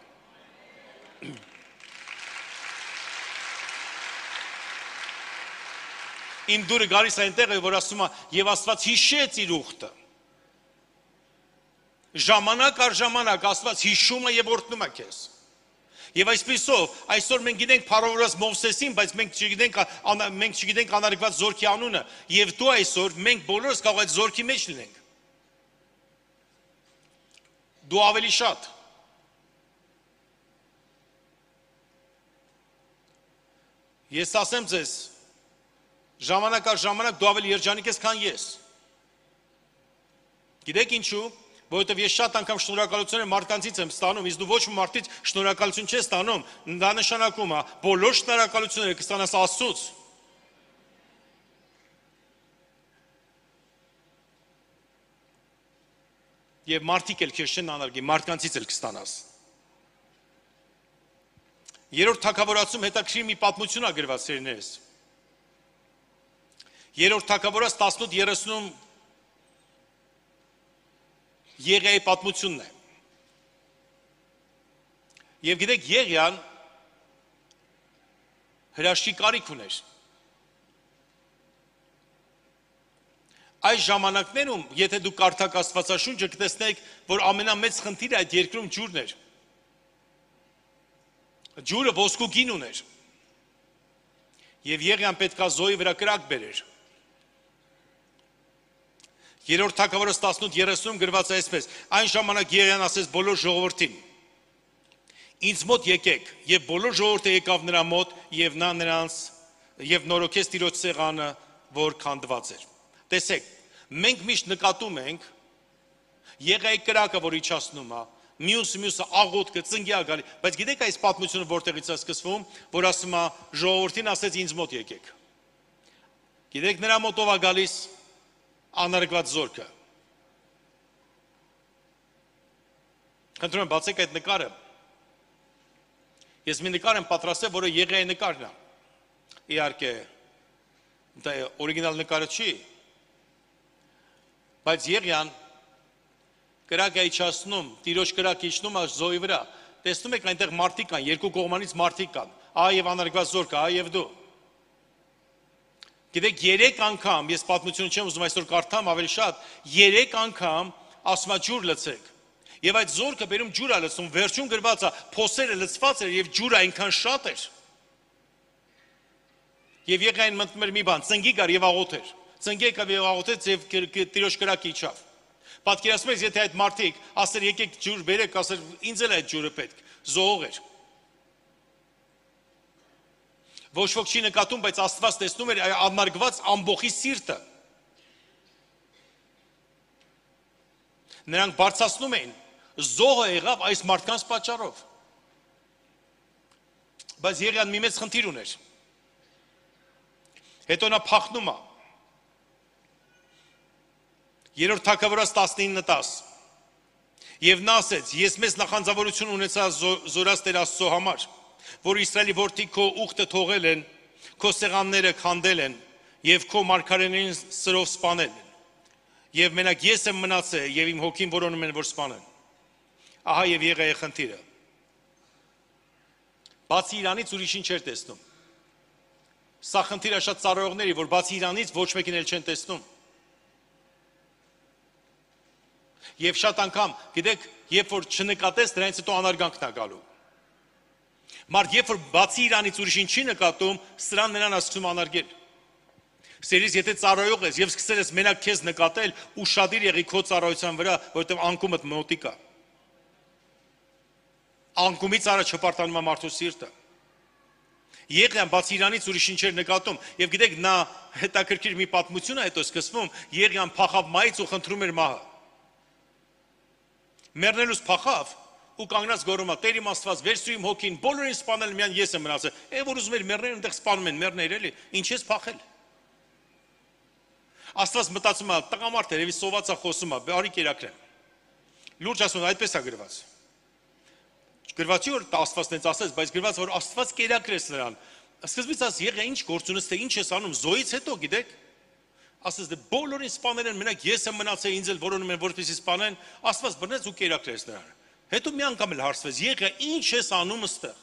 Իմ դուրը գալիս այնտեղ է, որ ասում է, եւ Աստված հիշեց իր ուխտը։ Ժամանակ առ ժամանակ Աստված հիշում է եւ օրհնում է քեզ։ Եվ այսպիսով, այսօր մենք գիտենք փառավորած Մովսեսին, բայց մենք չգիտենք անարգված զորքի անունը, եւ դու այսօր մենք բոլորս կարող այդ զորքի մեջ լինենք։ Դու ավելի շատ։ Ես ասեմ ձեզ, ժամանակ առ ժամանակ դու ավելի երջանիկ ես, քան ես։ Գիտեք ինչու։ Որովհետև ես շատ անգամ շնորհակալություն մարդկանցից եմ ստանում, իսկ դու ոչ մի մարդից շնորհակալություն չես ստանում, դա նշանակում է բոլոր շնորհակալությունները կստանաս Աստծուց։ Եվ մարդիկ էլ քեզ չեն անարգի, մարդկանցից էլ կստանաս։ Երրորդ թագավորացում հետաքրքիր մի պատմություն է գրված սերներս։ Երրորդ թագավորաց 18:30 Եղիայի պատմությունն է։ Եվ գիտեք, Եղիան հրաշքի կարիք ուներ։ Այս ժամանակներում, եթե դու կարդաք Աստվածաշունչը, կտեսնեք, որ ամենամեծ խնդիրը այդ երկրում ջուրն էր։ Ջուրը ոսկու գին ուներ։ Եվ Եղիան պետքա զոհի վրա կրակ բերեր։ Երրորդ թագավորաց 18:30 գրված է այսպես. Այն ժամանակ Եղիան ասեց բոլոր ժողովրդին. Ինձ մոտ եկեք, եւ բոլոր ժողովուրդը եկավ նրա մոտ, եւ նա նրանց եւ նորոգեց Տիրոջ սեղանը, որ քանդված էր։ Տեսեք, մենք միշտ նկատում ենք Եղիայի կրակը, որ իջացնում է, մյուսը աղոթքը, ծնգյա գալի, բայց գիտեք այս պատմությունը որտեղից է սկսվում, որ ասում է ժողովրդին ասեց ինձ մոտ եկեք։ Գիտեք նրա մոտ ով է գալիս անարգված զորքը։ Խնդրում եմ բացեք այդ նկարը։ Ես մի նկար եմ պատրաստել, որը Եղիայի նկարն է։ Իհարկե, դա օրիգինալ նկարը չի, բայց Եղիան կրակ է իջացնում, Տիրոջ կրակ իջնում է զոհի վրա։ Տեսնում եք այնտեղ մարդիկ կան, երկու կողմանից մարդիկ կան, ահա եւ անարգված զորքը, ահա եւ դու։ Գիտեք, 3 անգամ, ես պատմությունը չեմ ուզում այսօր կարդամ ավելի շատ, 3 անգամ ասում է ջուր լցեք։ Եվ այդ զորքը բերում ջուր է լցնում, վերջում գրված է, փոսերը լցված էր եւ ջուրը այնքան շատ էր։ Եվ Եղիային մտնում էր մի բան, ծնգի գար եւ աղոթեր։ Ծնգի եկավ եւ աղոթեց եւ Տիրոջ կրակը իջավ։ Պատկերացնեք, եթե այդ մարդիկ ասեր եկեք ջուր բերեք, ասեր ինձ էլ այդ ջուրը պետք, զոհող էր։ Ոչ ոք չի նկատում, բայց Աստված տեսնում էր անարգված ամբողջի սիրտը։ Նրանք բարձրացնում էին, զոհը եղավ այս մարդկանց պատճառով։ Բայց Եղիան մի մեծ խնդիր ուներ։ Հետո նա փախնում է։ Երրորդ թագավորաց 19:10 Եվ նա ասեց. ես մեծ նախանձավորություն ունեցա զորած Տեր Աստծո համար, որ Իսրայելի որդի քո ուխտը թողել են, քո սեղանները քանդել են եւ քո մարգարեներին սրով սպանել են։ Եվ մենակ ես եմ մնացել եւ իմ հոգին որոնում են որ սպանեն։ Ահա եւ Եղիայի խնդիրը։ Բացի իրանից ուրիշին չէր տեսնում։ Սա խնդիրը շատ ծառայողների, որ բացի իրանից ոչ մեկին էլ չեն տեսնում։ Եվ շատ անգամ, գիտեք, երբ որ չնկատես, դրանից հետո անարգանքն է գալու։ Մարդ երբ որ բացի իրանից ուրիշին չի նկատում, սրան նրան ասում անարգել։ Սերից եթե ծառայող ես եւ սկսել ես մենակ քեզ նկատել, ուշադիր եղի քո ծառայության վրա, որովհետեւ անկումդ մոտիկ է։ Անկումից առաջ հպարտանում է մարդու սիրտը։ Եղիան բացի իրանից ուրիշին չէր նկատում, եւ գիտեք, նա հետաքրքիր մի պատմություն է հետո սկսվում, Եղիան փախավ մայից ու խնդրում էր մահը։ Մեռնելուց փախավ ու կանգնած գոռում է. Տեր իմ Աստված, վերցրու իմ հոգին, բոլորին սպանել, միայն ես եմ մնացել։ Այն որ ուզում էր մեռնել, այնտեղ սպանում են, մեռներ էլի, ինչ ես փախել։ Աստված մտածում է, տղամարդ երևի սոված է խոսում է, արի կերակրեմ։ Լուրջ ասում, այդպես է գրված։ Գրված չի որ Աստված տենց ասեց, բայց գրված որ Աստված կերակրեց նրան։ Սկզբից ասես եղե ինչ գործ ունես, թե ինչ ես անում, զոհից հետո գիտեք։ Ասես դե բոլորին սպանել են, մենակ ես եմ մնացել, ինձ էլ որոնում են որպեսզի սպանեն, Աստված բռնեց ու կերակրեց նրան։ Հետո մի անգամ էլ հարցվեց, եղե ինչ ես անում այստեղ։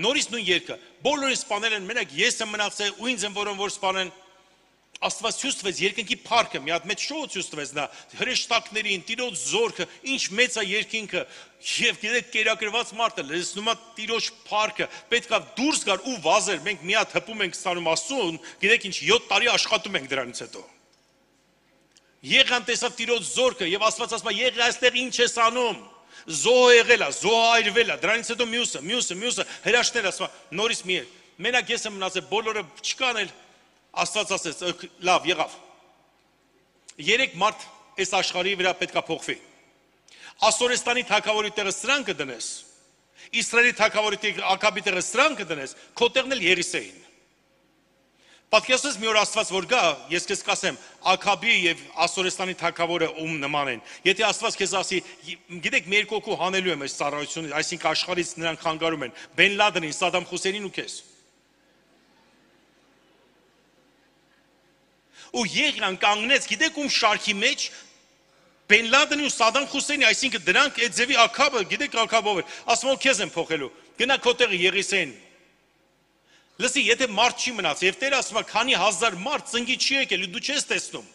Նորից նույն երգը, բոլորին սպանել են, մենակ ես եմ մնացել ու ինձ են որոնում որ սպանեն։ Աստված ցույց երկնքի փառքը, մի հատ մեծ շոու ցույց տվեց նա, հրեշտակներին, Տիրոջ զորքը, ինչ մեծ է երկինքը, եւ գիտեք կերակրված մարդը լսնում է Տիրոջ փառքը, պետքա դուրս գար ու վազեր, մենք մի հատ հպում ենք ստանում Աստծուն, գիտեք ինչ 7 տարի աշխատում ենք դրանից հետո։ Եղան տեսավ Տիրոջ զորքը եւ Աստված ասում է, եղի այստեղ ինչ ես անում։ Զոհ եղել է, զոհ այրվել է, դրանից հետո մյուսը հրաշքներ ասում, նորից մի մենակ ես եմ մնացել, բոլորը չկան էլ Աստված ասեց, լավ, եղավ։ 3 մարդ այս աշխարհի վրա պետքա փոխվի։ Ասորեստանի թագավորի տեղը սրան կդնես, Իսրայելի թագավորի տեղը Աքաբի տեղը սրան կդնես, քո տեղն էլ Եղիսեին։ Պատկերացրեք մի օր Աստված որ գա, ես քեզ կասեմ, Աքաբի եւ Ասորեստանի թագավորը ում նման են։ Եթե Աստված քեզ ասի, գիտեք, մի երկու հոգու հանելու եմ այս ծառայությունը, այսինքն աշխարհից նրանք խանգարում են, Բեն Լադենին, Սադամ Խուսեյնին ու քեզ։ Ու Եղիան կանգնեց, գիտեք ում շարքի մեջ Բեն Լադենի ու Սադամ Խուսեյնի, այսինքն դրանք այդ ձևի Աքաբը, գիտեք Աքաբով էր, ասում որ քեզ եմ փոխելու, գնա քո տեղը Եղիսեին։ Լսի, եթե մարդ չի մնաց, եւ Տերը ասում է, քանի հազար մարդ ծնկի չի եկել, դու չես տեսնում։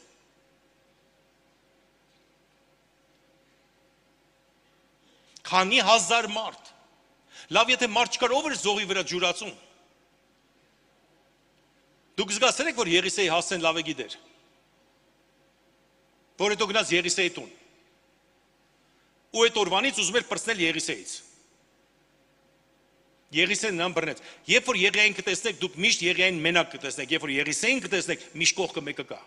Քանի հազար մարդ։ Լավ, եթե մարդ չկար, ով էր զոհի վրա ջուրացում։ Դուք զգացել եք, որ Եղիսեի հասցեն լավ է գիտեր, որ հետո գնաց Եղիսեի տուն, ու այդ օրվանից ուզում էր պրծնել Եղիսեից, Եղիսեն նրան բռնեց, երբ որ Եղիային կտեսնեք, դուք միշտ Եղիային մենակ կտեսնեք, երբ որ Եղիսեին կտեսնեք, միշտ կողքը մեկը կա,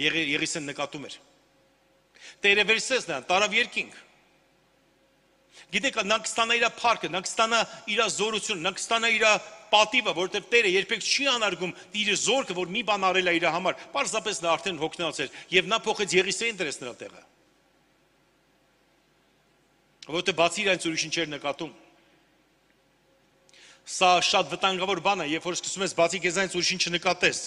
Եղիսեն նկատում էր, Տերը վերցրեց նրան, տարավ երկինք, գիտեք, նա կստանա իր փառքը, նա կստանա իր զորությունը, նա կստանա իր պատիվը, որովհետև Տերը երբեք չի անարգում իր զորքը, որ մի բան արել է իր համար, պարզապես նա արդեն հոգնած էր, եւ նա փոխեց Եղիսեին դրեց նրա տեղը։ Որովհետև բացի իրանից ուրիշին չէր նկատում։ Սա շատ վտանգավոր բան է, երբ որ սկսում ես բացի քեզանից ուրիշին չնկատես։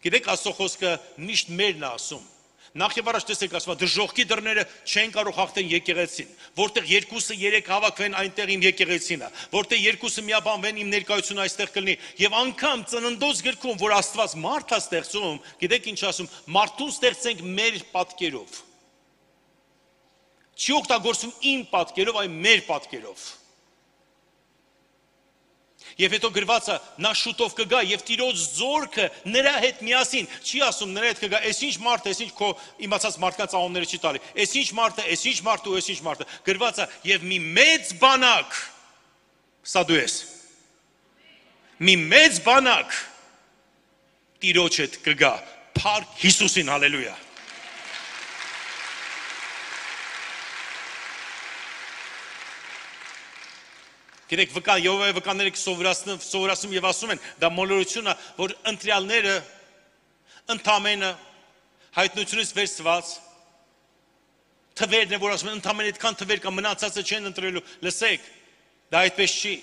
Գիտեք, Աստծո խոսքը միշտ մերն է ասում։ Նախ եւ առաջ տեսեք, ասում է, դժոխքի դռները չեն կարող հաղթեն եկեղեցին, որտեղ 2-3 հավաքվեն այնտեղ իմ եկեղեցին է, որտեղ 2 միաբանվեն իմ ներկայությունը այստեղ կլինի, եւ անգամ ծննդոց գրքում, որ Աստված մարդ է ստեղծում, գիտեք ինչ ասում, մարդուն ստեղծենք մեր պատկերով։ Չի օգտագործում իմ պատկերով, այլ մեր պատկերով։ Եվ հետո գրվածը նա շուտով կգա եւ Տիրոջ զորքը նրա հետ միասին, չի ասում նրա հետ կգա, այսինչ մարդը, այսինչ քո իմացած մարդկանց անունները չի տալի, այսինչ մարդը, այսինչ մարդը ու այսինչ մարդը, գրվածը եւ մի մեծ բանակ, սա դու ես, մի մեծ բանակ Տիրոջ հետ կգա, փառք Հիսուսին, հալելույա։ Գիտեք, վկաները սովորացնում եւ ասում են, դա մոլորություն է, որ ընտրյալները ընդամենը հայտնությունից վերցված թվերն է, որ ասում են, ընդամենը այդքան թվեր կա, մնացածը չեն ընտրելու, լսեք, դա այդպես չի,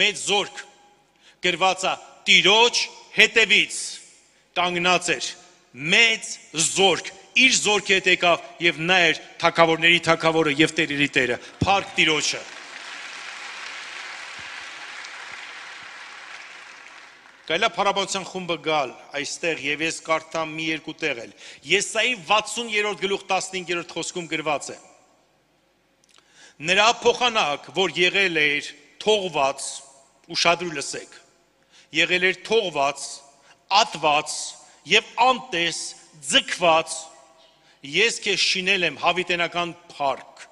մեծ զորք, գրված է, Տիրոջ հետևից կանգնած էր, մեծ զորք, իր զորքի հետ եկավ եւ նա էր թագավորների թագավորը եւ տերերի տերը, փառք Տիրոջը։ Գայլա փառաբանության խումբը գալ այստեղ եւ ես կարդամ մի երկու տեղ էլ։ Եսայի 60-րդ գլուխ 15-րդ խոսքում գրված է. Նրա փոխանակ, որ եղել էր թողված, ուշադրու լսեք, եղել էր թողված, ատված եւ անտես, ձգված, ես քեզ շինել եմ հավիտենական փառք,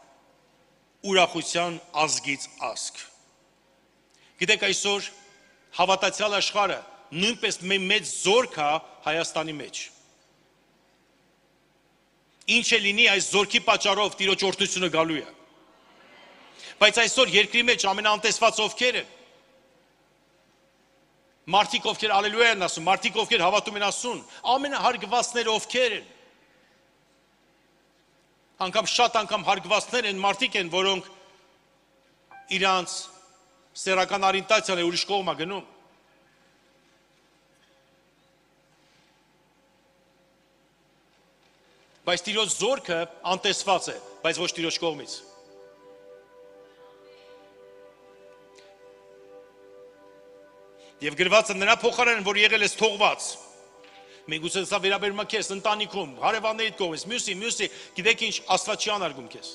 ուրախության ազգից ազգ։ Գիտեք այսօր հավատացյալ աշխարհը նույնպես մեծ զորք է Հայաստանի մեջ։ Ինչ է լինի այս զորքի պատճառով Տիրոջ օրհնությունը գալու է։ Բայց այսօր երկրի մեջ ամենաանտեսված ովքեր են։ Մարդիկ ովքեր ալելույա են ասում, մարդիկ ովքեր հավատում են ասում, ամենահարգվածները ովքեր են։ Անգամ շատ անգամ հարգվածներ են մարդիկ են, որոնք իրանց սեռական օրիենտացիան է ուրիշ կողմ է գնում։ Բայց Տիրոջ զորքը անտեսված է, բայց ոչ Տիրոջ կողմից։ Եվ գրված է նրա փոխարեն, որ եղել ես թողված։ Մենք ուզում ենք սա վերաբերում է քեզ ընտանիքում, հարևաններիդ կողմից, մյուսի, գիտեք ինչ, Աստված չի անարգում քեզ։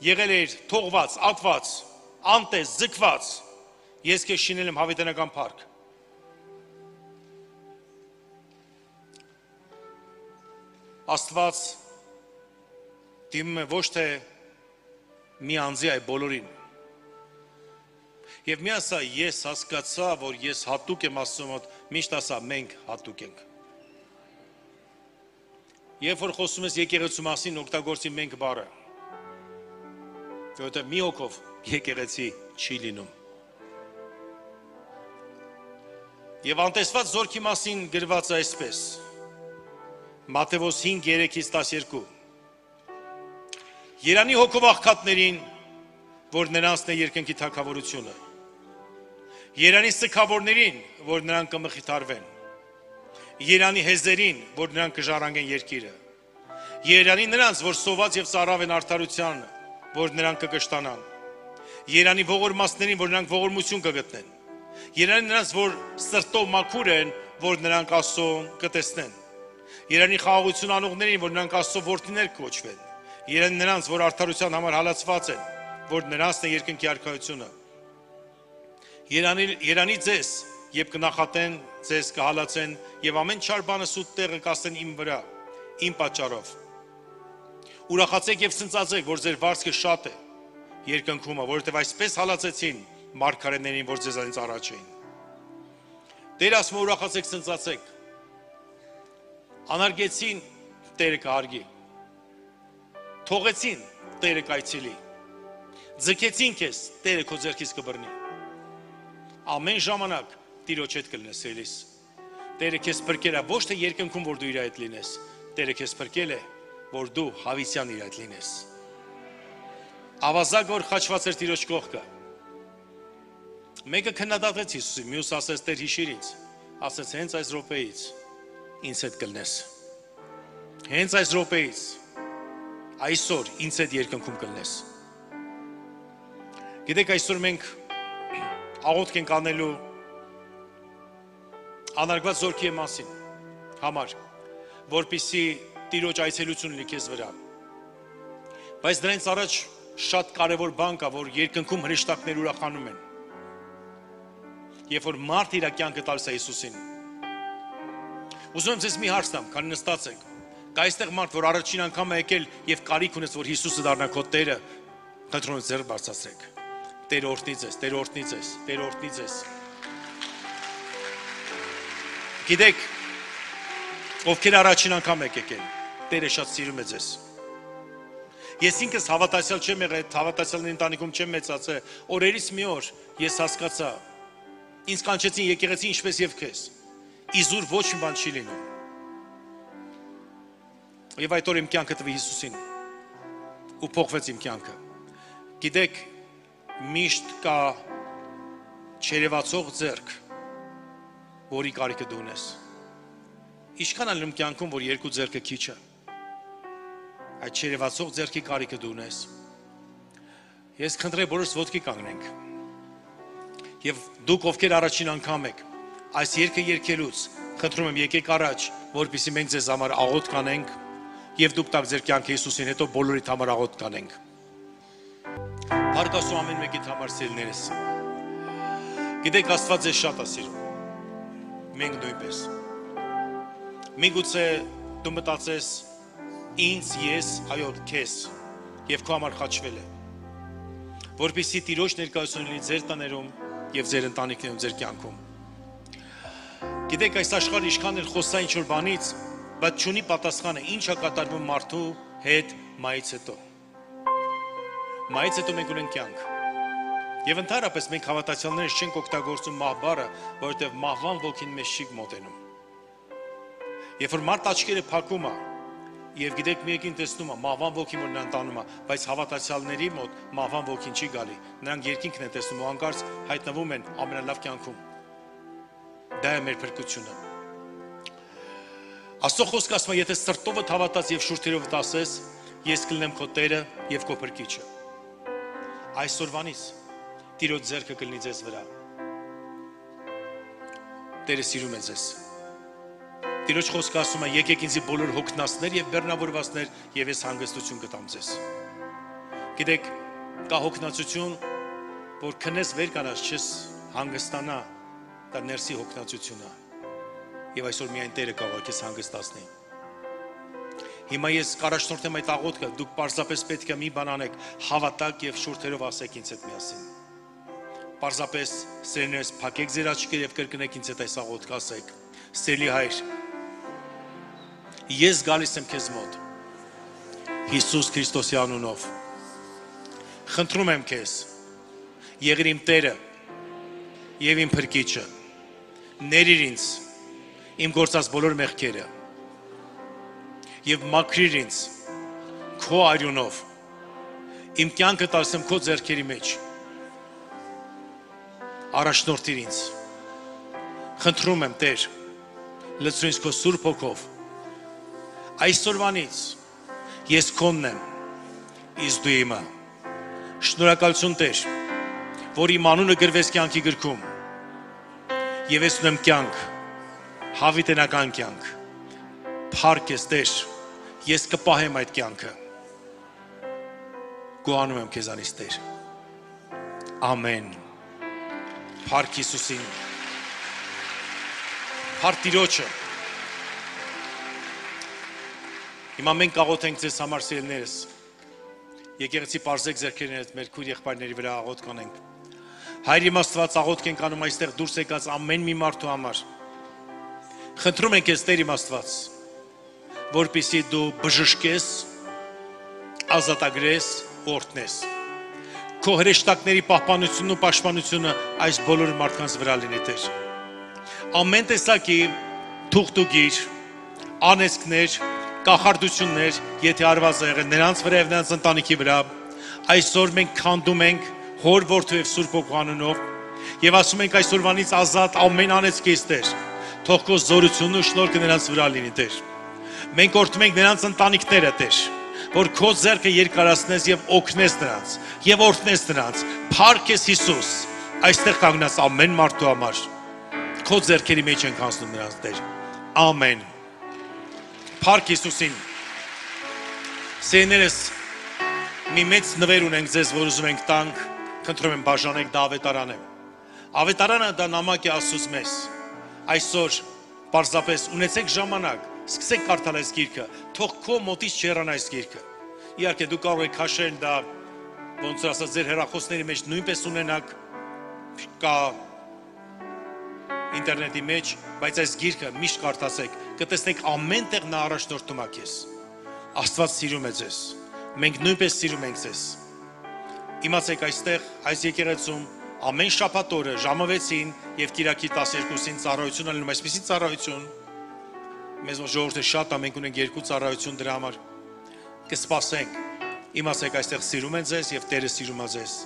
Եղել էր թողված, ատված, անտես, ձգված, ես քեզ շինել եմ հավիտենական փառք։ Աստված դիմում է ոչ թե մի անձի, այլ բոլորին։ Եվ մի ասա, ես հասկացա, որ ես հատուկ եմ Աստծո մոտ, միշտ ասա, մենք հատուկ ենք։ Երբ որ խոսում ես եկեղեցու մասին, օգտագործի մենք բառը։ Որովհետև մի հոգով եկեղեցի չի լինում։ Եվ անտեսված զորքի մասին գրված է այսպես. Մատթեոս 5:3-12 Երանի հոգով աղքատներին, որ նրանցն է երկնքի թագավորությունը։ Երանի սգավորներին, որ նրանք կմխիթարվեն։ Երանի հեզերին, որ նրանք կժառանգեն երկիրը։ Երանի նրանց, որ սոված եւ ծարավ են արդարության, որ նրանք կկշտանան։ Երանի ողորմածներին, որ նրանք ողորմություն կգտնեն։ Երանի նրանց, որ սրտով մաքուր են, որ նրանք Աստծո կտեսնեն։ Երանի խաղաղություն անողներին, որ նրանք Աստծո որդիներ կոչվեն։ Երանի նրանց, որ արդարության համար հալածված են, որ նրանցն է երկնքի արքայությունը։ Երանի ձեզ, երբ կնախատեն, ձեզ կհալածեն եւ ամեն չար բանը սուտ տեղը կասեն իմ վրա, իմ պատճառով։ Ուրախացեք եւ ցնծացեք, որ ձեր վարձքը շատ է երկնքում, որովհետեւ այսպես հալածեցին մարգարեներին, որ ձեզանից առաջ էին։ Տեր ասում է ուրախացեք, ցնծացեք։ Անարգեցին, Տերը կհարգի։ Թողեցին, Տերը կայցելի։ Ձգեցին քեզ, Տերը քո ձեռքից կբռնի։ Ամեն ժամանակ Տիրոջ հետ կլինես ելիս։ Տերը քեզ փրկել է ոչ թե երկնքում, որ դու իր հետ լինես, Տերը քեզ փրկել է, որ դու հավիտյան իր հետ լինես։ Ավազակ որ խաչված էր Տիրոջ կողքը։ Մեկը քննադատեց Հիսուսին, մյուս ասեց Տեր հիշիր ինձ, ասեց հենց այս րոպեից ինձ հետ կլնես։ Հենց այս րոպեից այսօր ինձ հետ երկնքում կլնես։ Գիտեք այսօր մենք աղոթք ենք անելու անարգված զորքի մասին համար, որպեսզի Տիրոջ այցելություն լինի քեզ վրա։ Բայց դրանից առաջ շատ կարևոր բան կա, որ երկնքում հրեշտակներ ուրախանում են։ Երբ որ մարդ իր կյանքը տալիս է Հիսուսին։ Ուզում եմ ձեզ մի հարց տամ, քանի նստած եք։ Կա այստեղ մարդ, որ առաջին անգամ է եկել եւ կարիք ունես, որ Հիսուսը դառնա քո Տերը, խնդրում եմ ձեռք բարձրացրեք։ Տեր օրհնի ձեզ, Տեր օրհնի ձեզ, Տեր օրհնի ձեզ։ Գիտեք, ովքեր առաջին անգամ եք եկել, Տերը շատ սիրում է ձեզ։ Ես ինքս հավատացյալ չեմ եղել, հավատացյալների ընտանիքում չեմ մեծացել, օրերից մի օր ես հասկացա, ինձ կանչեցին եկեղեցի ինչպես եւ քեզ։ Իզուր ոչ մի բան չի լինում։ Եվ այդ օր իմ կյանքը տվի Հիսուսին ու փոխվեց իմ կյանքը։ Գիտեք, միշտ կա չերևացող ձեռք, որի կարիքը դու ունես։ Ինչքան ալնում կյանքում, որ երկու ձեռքը քիչ է։ Այդ չերևացող ձեռքի կարիքը դու ունես։ Ես խնդրեմ բոլորս ոտքի կանգնենք։ Եվ դուք ովքեր առաջին անգամ եք, այս երգը երգելուց խնդրում եմ եկեք առաջ, որպեսզի մենք ձեզ համար աղոթ կանենք եւ դուք տակ ձեր կյանքը Հիսուսին, հետո բոլորիդ համար աղոթ կանենք։ Հարգասու ամեն մեկիդ համար սիրելիներս։ Գիտեք Աստված ձեզ շատ է սիրում։ Մենք նույնպես։ Միգուցե դու մտածես ինձ, ես, այո, քեզ եւ քո համար խաչվել է։ Որպեսզի Տիրոջ ներկայությունը լինի ձեր տաներում եւ ձեր ընտանիքներում, ձեր կյանքում։ Գիտեք այս աշխարհը ինչքան էլ խոսա ինչ-որ բանից, բայց չունի պատասխանը ինչ է կատարվում մարդու հետ մայից հետո։ Մայից հետո մենք ունենք կյանք։ Եվ ընդհանրապես մենք հավատացյալներս չենք օգտագործում մահ բառը, որովհետև մահվան ոգին մեզ չի մոտենում։ Երբ որ մարդ աչքերը փակում է, եւ գիտեք մի եկին տեսնում է մահվան ոգին, որ նրան տանում է, բայց հավատացյալների մոտ մահվան ոգին չի գալի։ Նրանք երկինքն են տեսնում ու անկարծ հայտնվում են ամենալավ կյանքում։ Դա է մեր փրկությունը։ Աստծո խոսքը ասում է, եթե սրտովդ հավատաս եւ շուրթերովդ ասես, ես կլինեմ քո Տերը եւ քո Փրկիչը։ Այսօրվանից Տիրոջ ձեռքը կլինի ձեզ վրա։ Տերը սիրում է ձեզ։ Տիրոջ խոսքը ասում է, եկեք ինձի բոլոր հոգնածներ եւ բեռնավորվածներ, եւ ես հանգստություն կտամ ձեզ։ Գիտեք, կա հոգնածություն, որ քնես վեր կանաս չես հանգստանա, դա ներսի հոգնածություն է։ Եվ այսօր միայն Տերը կարող է քեզ հանգստացնի։ Հիմա ես կառաջնորդեմ այդ աղոթքը, դուք պարզապես պետք է մի բան անեք, հավատաք եւ շուրթերով ասեք ինձ հետ միասին։ Պարզապես սերներս փակեք ձեր աչքերը եւ կրկնեք ինձ հետ այս աղոթքը, ասեք. Սիրելի Հայր, ես գալիս եմ քեզ մոտ Հիսուս Քրիստոսի անունով։ Խնդրում եմ քեզ, եղիր իմ Տերը եւ իմ Փրկիչը։ Ներիր ինձ իմ գործած բոլոր մեղքերը եւ մաքրիր ինձ քո արյունով։ Իմ կյանքը տալիս եմ քո ձեռքերի մեջ։ Առաջնորդիր ինձ։ Խնդրում եմ Տեր, լցրու ինձ քո Սուրբ Հոգով։ Այսօրվանից ես քոնն եմ, իսկ դու իմը։ Շնորհակալություն Տեր, որ իմ անունը գրվեց կյանքի գրքում։ Եվ ես ունեմ կյանք, հավիտենական կյանք։ Փառք ես Տեր, ես կպահեմ այդ կյանքը։ Գոհանում եմ քեզանից Տեր։ Ամեն։ Փառք Հիսուսին։ Փառք Տիրոջը։ Հիմա մենք կաղոթենք ձեզ համար սիրելիներս։ Եկեղեցի պարզեք ձեռքերն հետ մեր քույր եղբայրների վրա աղոթք անենք։ Հայր իմ Աստված, աղոթք ենք անում այստեղ դուրս եկած ամեն մի մարդու համար։ Խնդրում ենք քեզ Տեր իմ Աստված, որպեսզի դու բժշկես, ազատագրես, օրհնես։ Քո հրեշտակների պահպանությունն ու պաշտպանությունը այս բոլոր մարդկանց վրա լինի Տեր։ Ամեն տեսակի թուղթուգիր, անեծքներ, կախարդություններ, եթե արված եղել նրանց վրա եւ նրանց ընտանիքի վրա, այսօր մենք քանդում ենք Հոր Որդու եւ Սուրբ Հոգու անունով եւ ասում ենք այսօրվանից ազատ ամեն անեծքից Տեր։ Թող քո զորությունն ու շնորհքը նրանց վրա լինի Տեր։ Մենք օրհնում ենք նրանց ընտանիքները Տեր, որ քո ձեռքը երկարացնես եւ օգնես նրանց եւ օրհնես նրանց։ Փառք ես Հիսուս, այստեղ կանգնած ամեն մարդու համար։ Քո ձեռքերի մեջ ենք հանձնում նրանց Տեր։ Ամեն։ Փառք Հիսուսին։ Սեներս մի մեծ նվեր ունենք ձեզ, որ ուզում ենք տանք, խնդրում եմ բաժանեք դա ավետարանը։ Ավետարանը դա նամակ է Աստծուց մեզ։ Այսօր պարզապես ունեցեք ժամանակ, սկսեք կարդալ այս գիրքը, թող քո մոտից չհեռանա այս գիրքը։ Իհարկե դու կարող եք քաշել դա, ոնց որ ասած ձեր հեռախոսների մեջ նույնպես ունենաք, կա ինտերնետի մեջ, բայց այս գիրքը միշտ կարդացեք, կտեսնեք ամեն տեղ նա առաջնորդում է քեզ։ Աստված սիրում է ձեզ։ Մենք նույնպես սիրում ենք ձեզ։ Իմացեք այստեղ այս եկեղեցում ամեն շաբաթ օրը ժամը 6-ին եւ Կիրակի 12-ին ծառայություն ալնում, այսպեսի ծառայություն։ Մեզ ժողովուրդը շատ է, մենք ունենք 2 ծառայություն դրա համար։ Կսպասենք։ Իմացեք այստեղ սիրում են ձեզ եւ Տերը սիրում է ձեզ։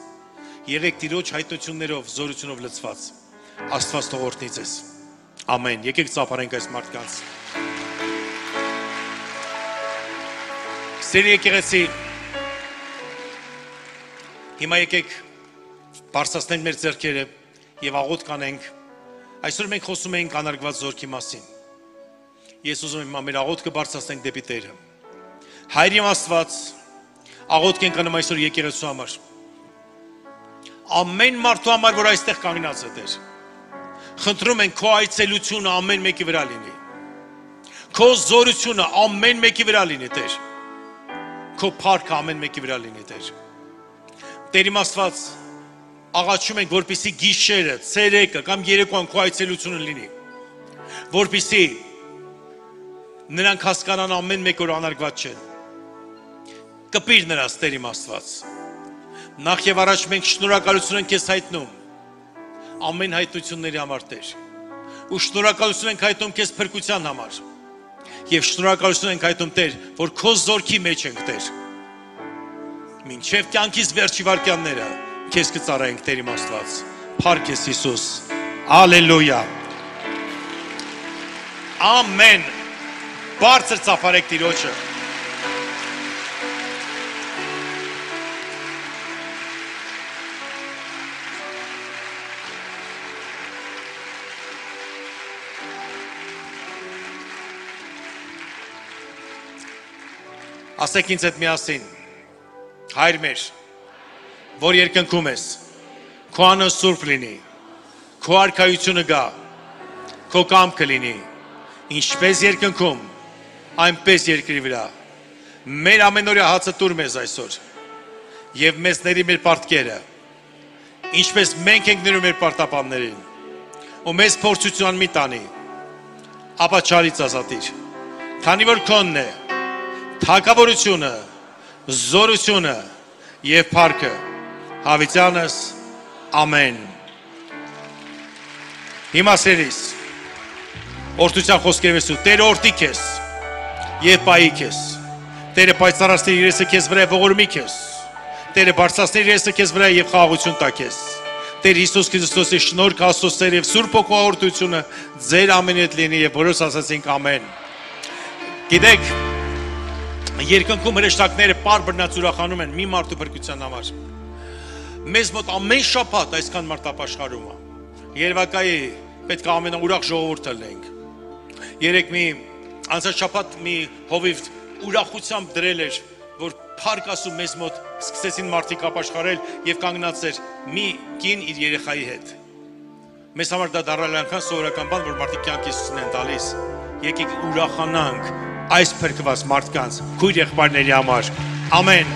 Եղեք Տիրոջ հայտնություններով, զորությունով լցված։ Աստված թող օրհնի ձեզ։ Ամեն։ Եկեք ծափարենք այս մարդկանց։ Սիրելի եկեղեցի, հիմա եկեք բարձրացնենք մեր ձեռքերը եւ աղոթք անենք։ Այսօր մենք խոսում ենք անարգված զորքի մասին։ Ես ուզում եմ մեր աղոթքը բարձրացնենք դեպի Տերը։ Հայր իմ Աստված, աղոթք ենք անում այսօր եկեղեցու համար։ Ամեն մարդու համար, որ այստեղ կանգնած է, Տեր, խնդրում ենք քո այցելությունը ամեն մեկի վրա լինի։ Քո զորությունը ամեն մեկի վրա լինի, Տեր։ Քո փառքը ամեն մեկի վրա լինի, Տեր։ Տեր իմ Աստված, աղաչում ենք, որպեսզի գիշերը, ցերեկը կամ երեկոյան քո այցելությունը լինի, որպեսզի նրանք հասկանան ամեն մեկ որ անարգված չեն։ Կպիր նրանց, Տեր իմ Աստված։ Նախ եւ առաջ մենք շնորհակալություն ենք քեզ հայտնում ամեն հայտնությունների համար, Տեր։ Ու շնորհակալություն ենք հայտնում քեզ փրկության համար։ Եվ շնորհակալություն ենք հայտնում, Տեր, որ քո զորքի մեջ ենք, Տեր։ Մինչև կյանքից վերջի վայրկյանները քեզ կծառայենք, Տեր իմ Աստված։ Փառք քեզ, Հիսուս։ Ալելույա։ Ամեն։ Բարձր ծափարեք Տիրոջը։ Ասեք ինձ հետ միասին, Հայր մեր, որ երկնքում ես, քո անունը սուրբ լինի, քո արքայությունը գա, քո կամքը լինի, ինչպես երկնքում, այնպես երկրի վրա։ Մեր ամենօրյա հացը տուր մեզ այսօր, եւ մեզ ների մեր պարտքերը, ինչպես մենք ենք ներում մեր պարտապաններին, ու մեզ փորձության մի տանի, ապա չարից ազատիր, քանի որ քոնն է թագավորությունը, զորությունը եւ փառքը հավիտյանս ամեն։ Հիմա սերիս օրդության խոսքերով ես ու Տերը օրդի քեզ եւ պայի քեզ։ Տերը պայծառացնի իր եսը քեզ վրա ողորմի քեզ։ Տերը բարձրացնի իր եսը քեզ վրա եւ խաղաղություն տա քեզ։ Տեր Հիսուս Քրիստոսի շնորհք, Աստծո սեր եւ Սուրբ Հոգու օրդությունը ձեր ամենի հետ լինի եւ բոլորս ասացինք ամեն։ Գիտեք, երկնքում հրեշտակները պար բռնած ուրախանում են մի մարդու փրկության համար։ Մեզ մոտ ամեն շաբաթ այսքան մարդ ապաշխարում է։ Երևակայի պետք է ամենաուրախ ժողովուրդը լինենք։ Երեք մի անցած շաբաթ մի հովիվ ուրախությամբ դրել էր, որ փառք Աստծո մեզ մոտ սկսեցին մարդիկ ապաշխարել եւ կանգնած էր մի կին իր երեխայի հետ։ Մեզ համար դա դառել անգամ սովորական բան, որ մարդիկ կյանք Հիսուսին են տալիս։ Եկեք ուրախանանք այս փրկված մարդկանց քույր եղբայրների համար։ Ամեն։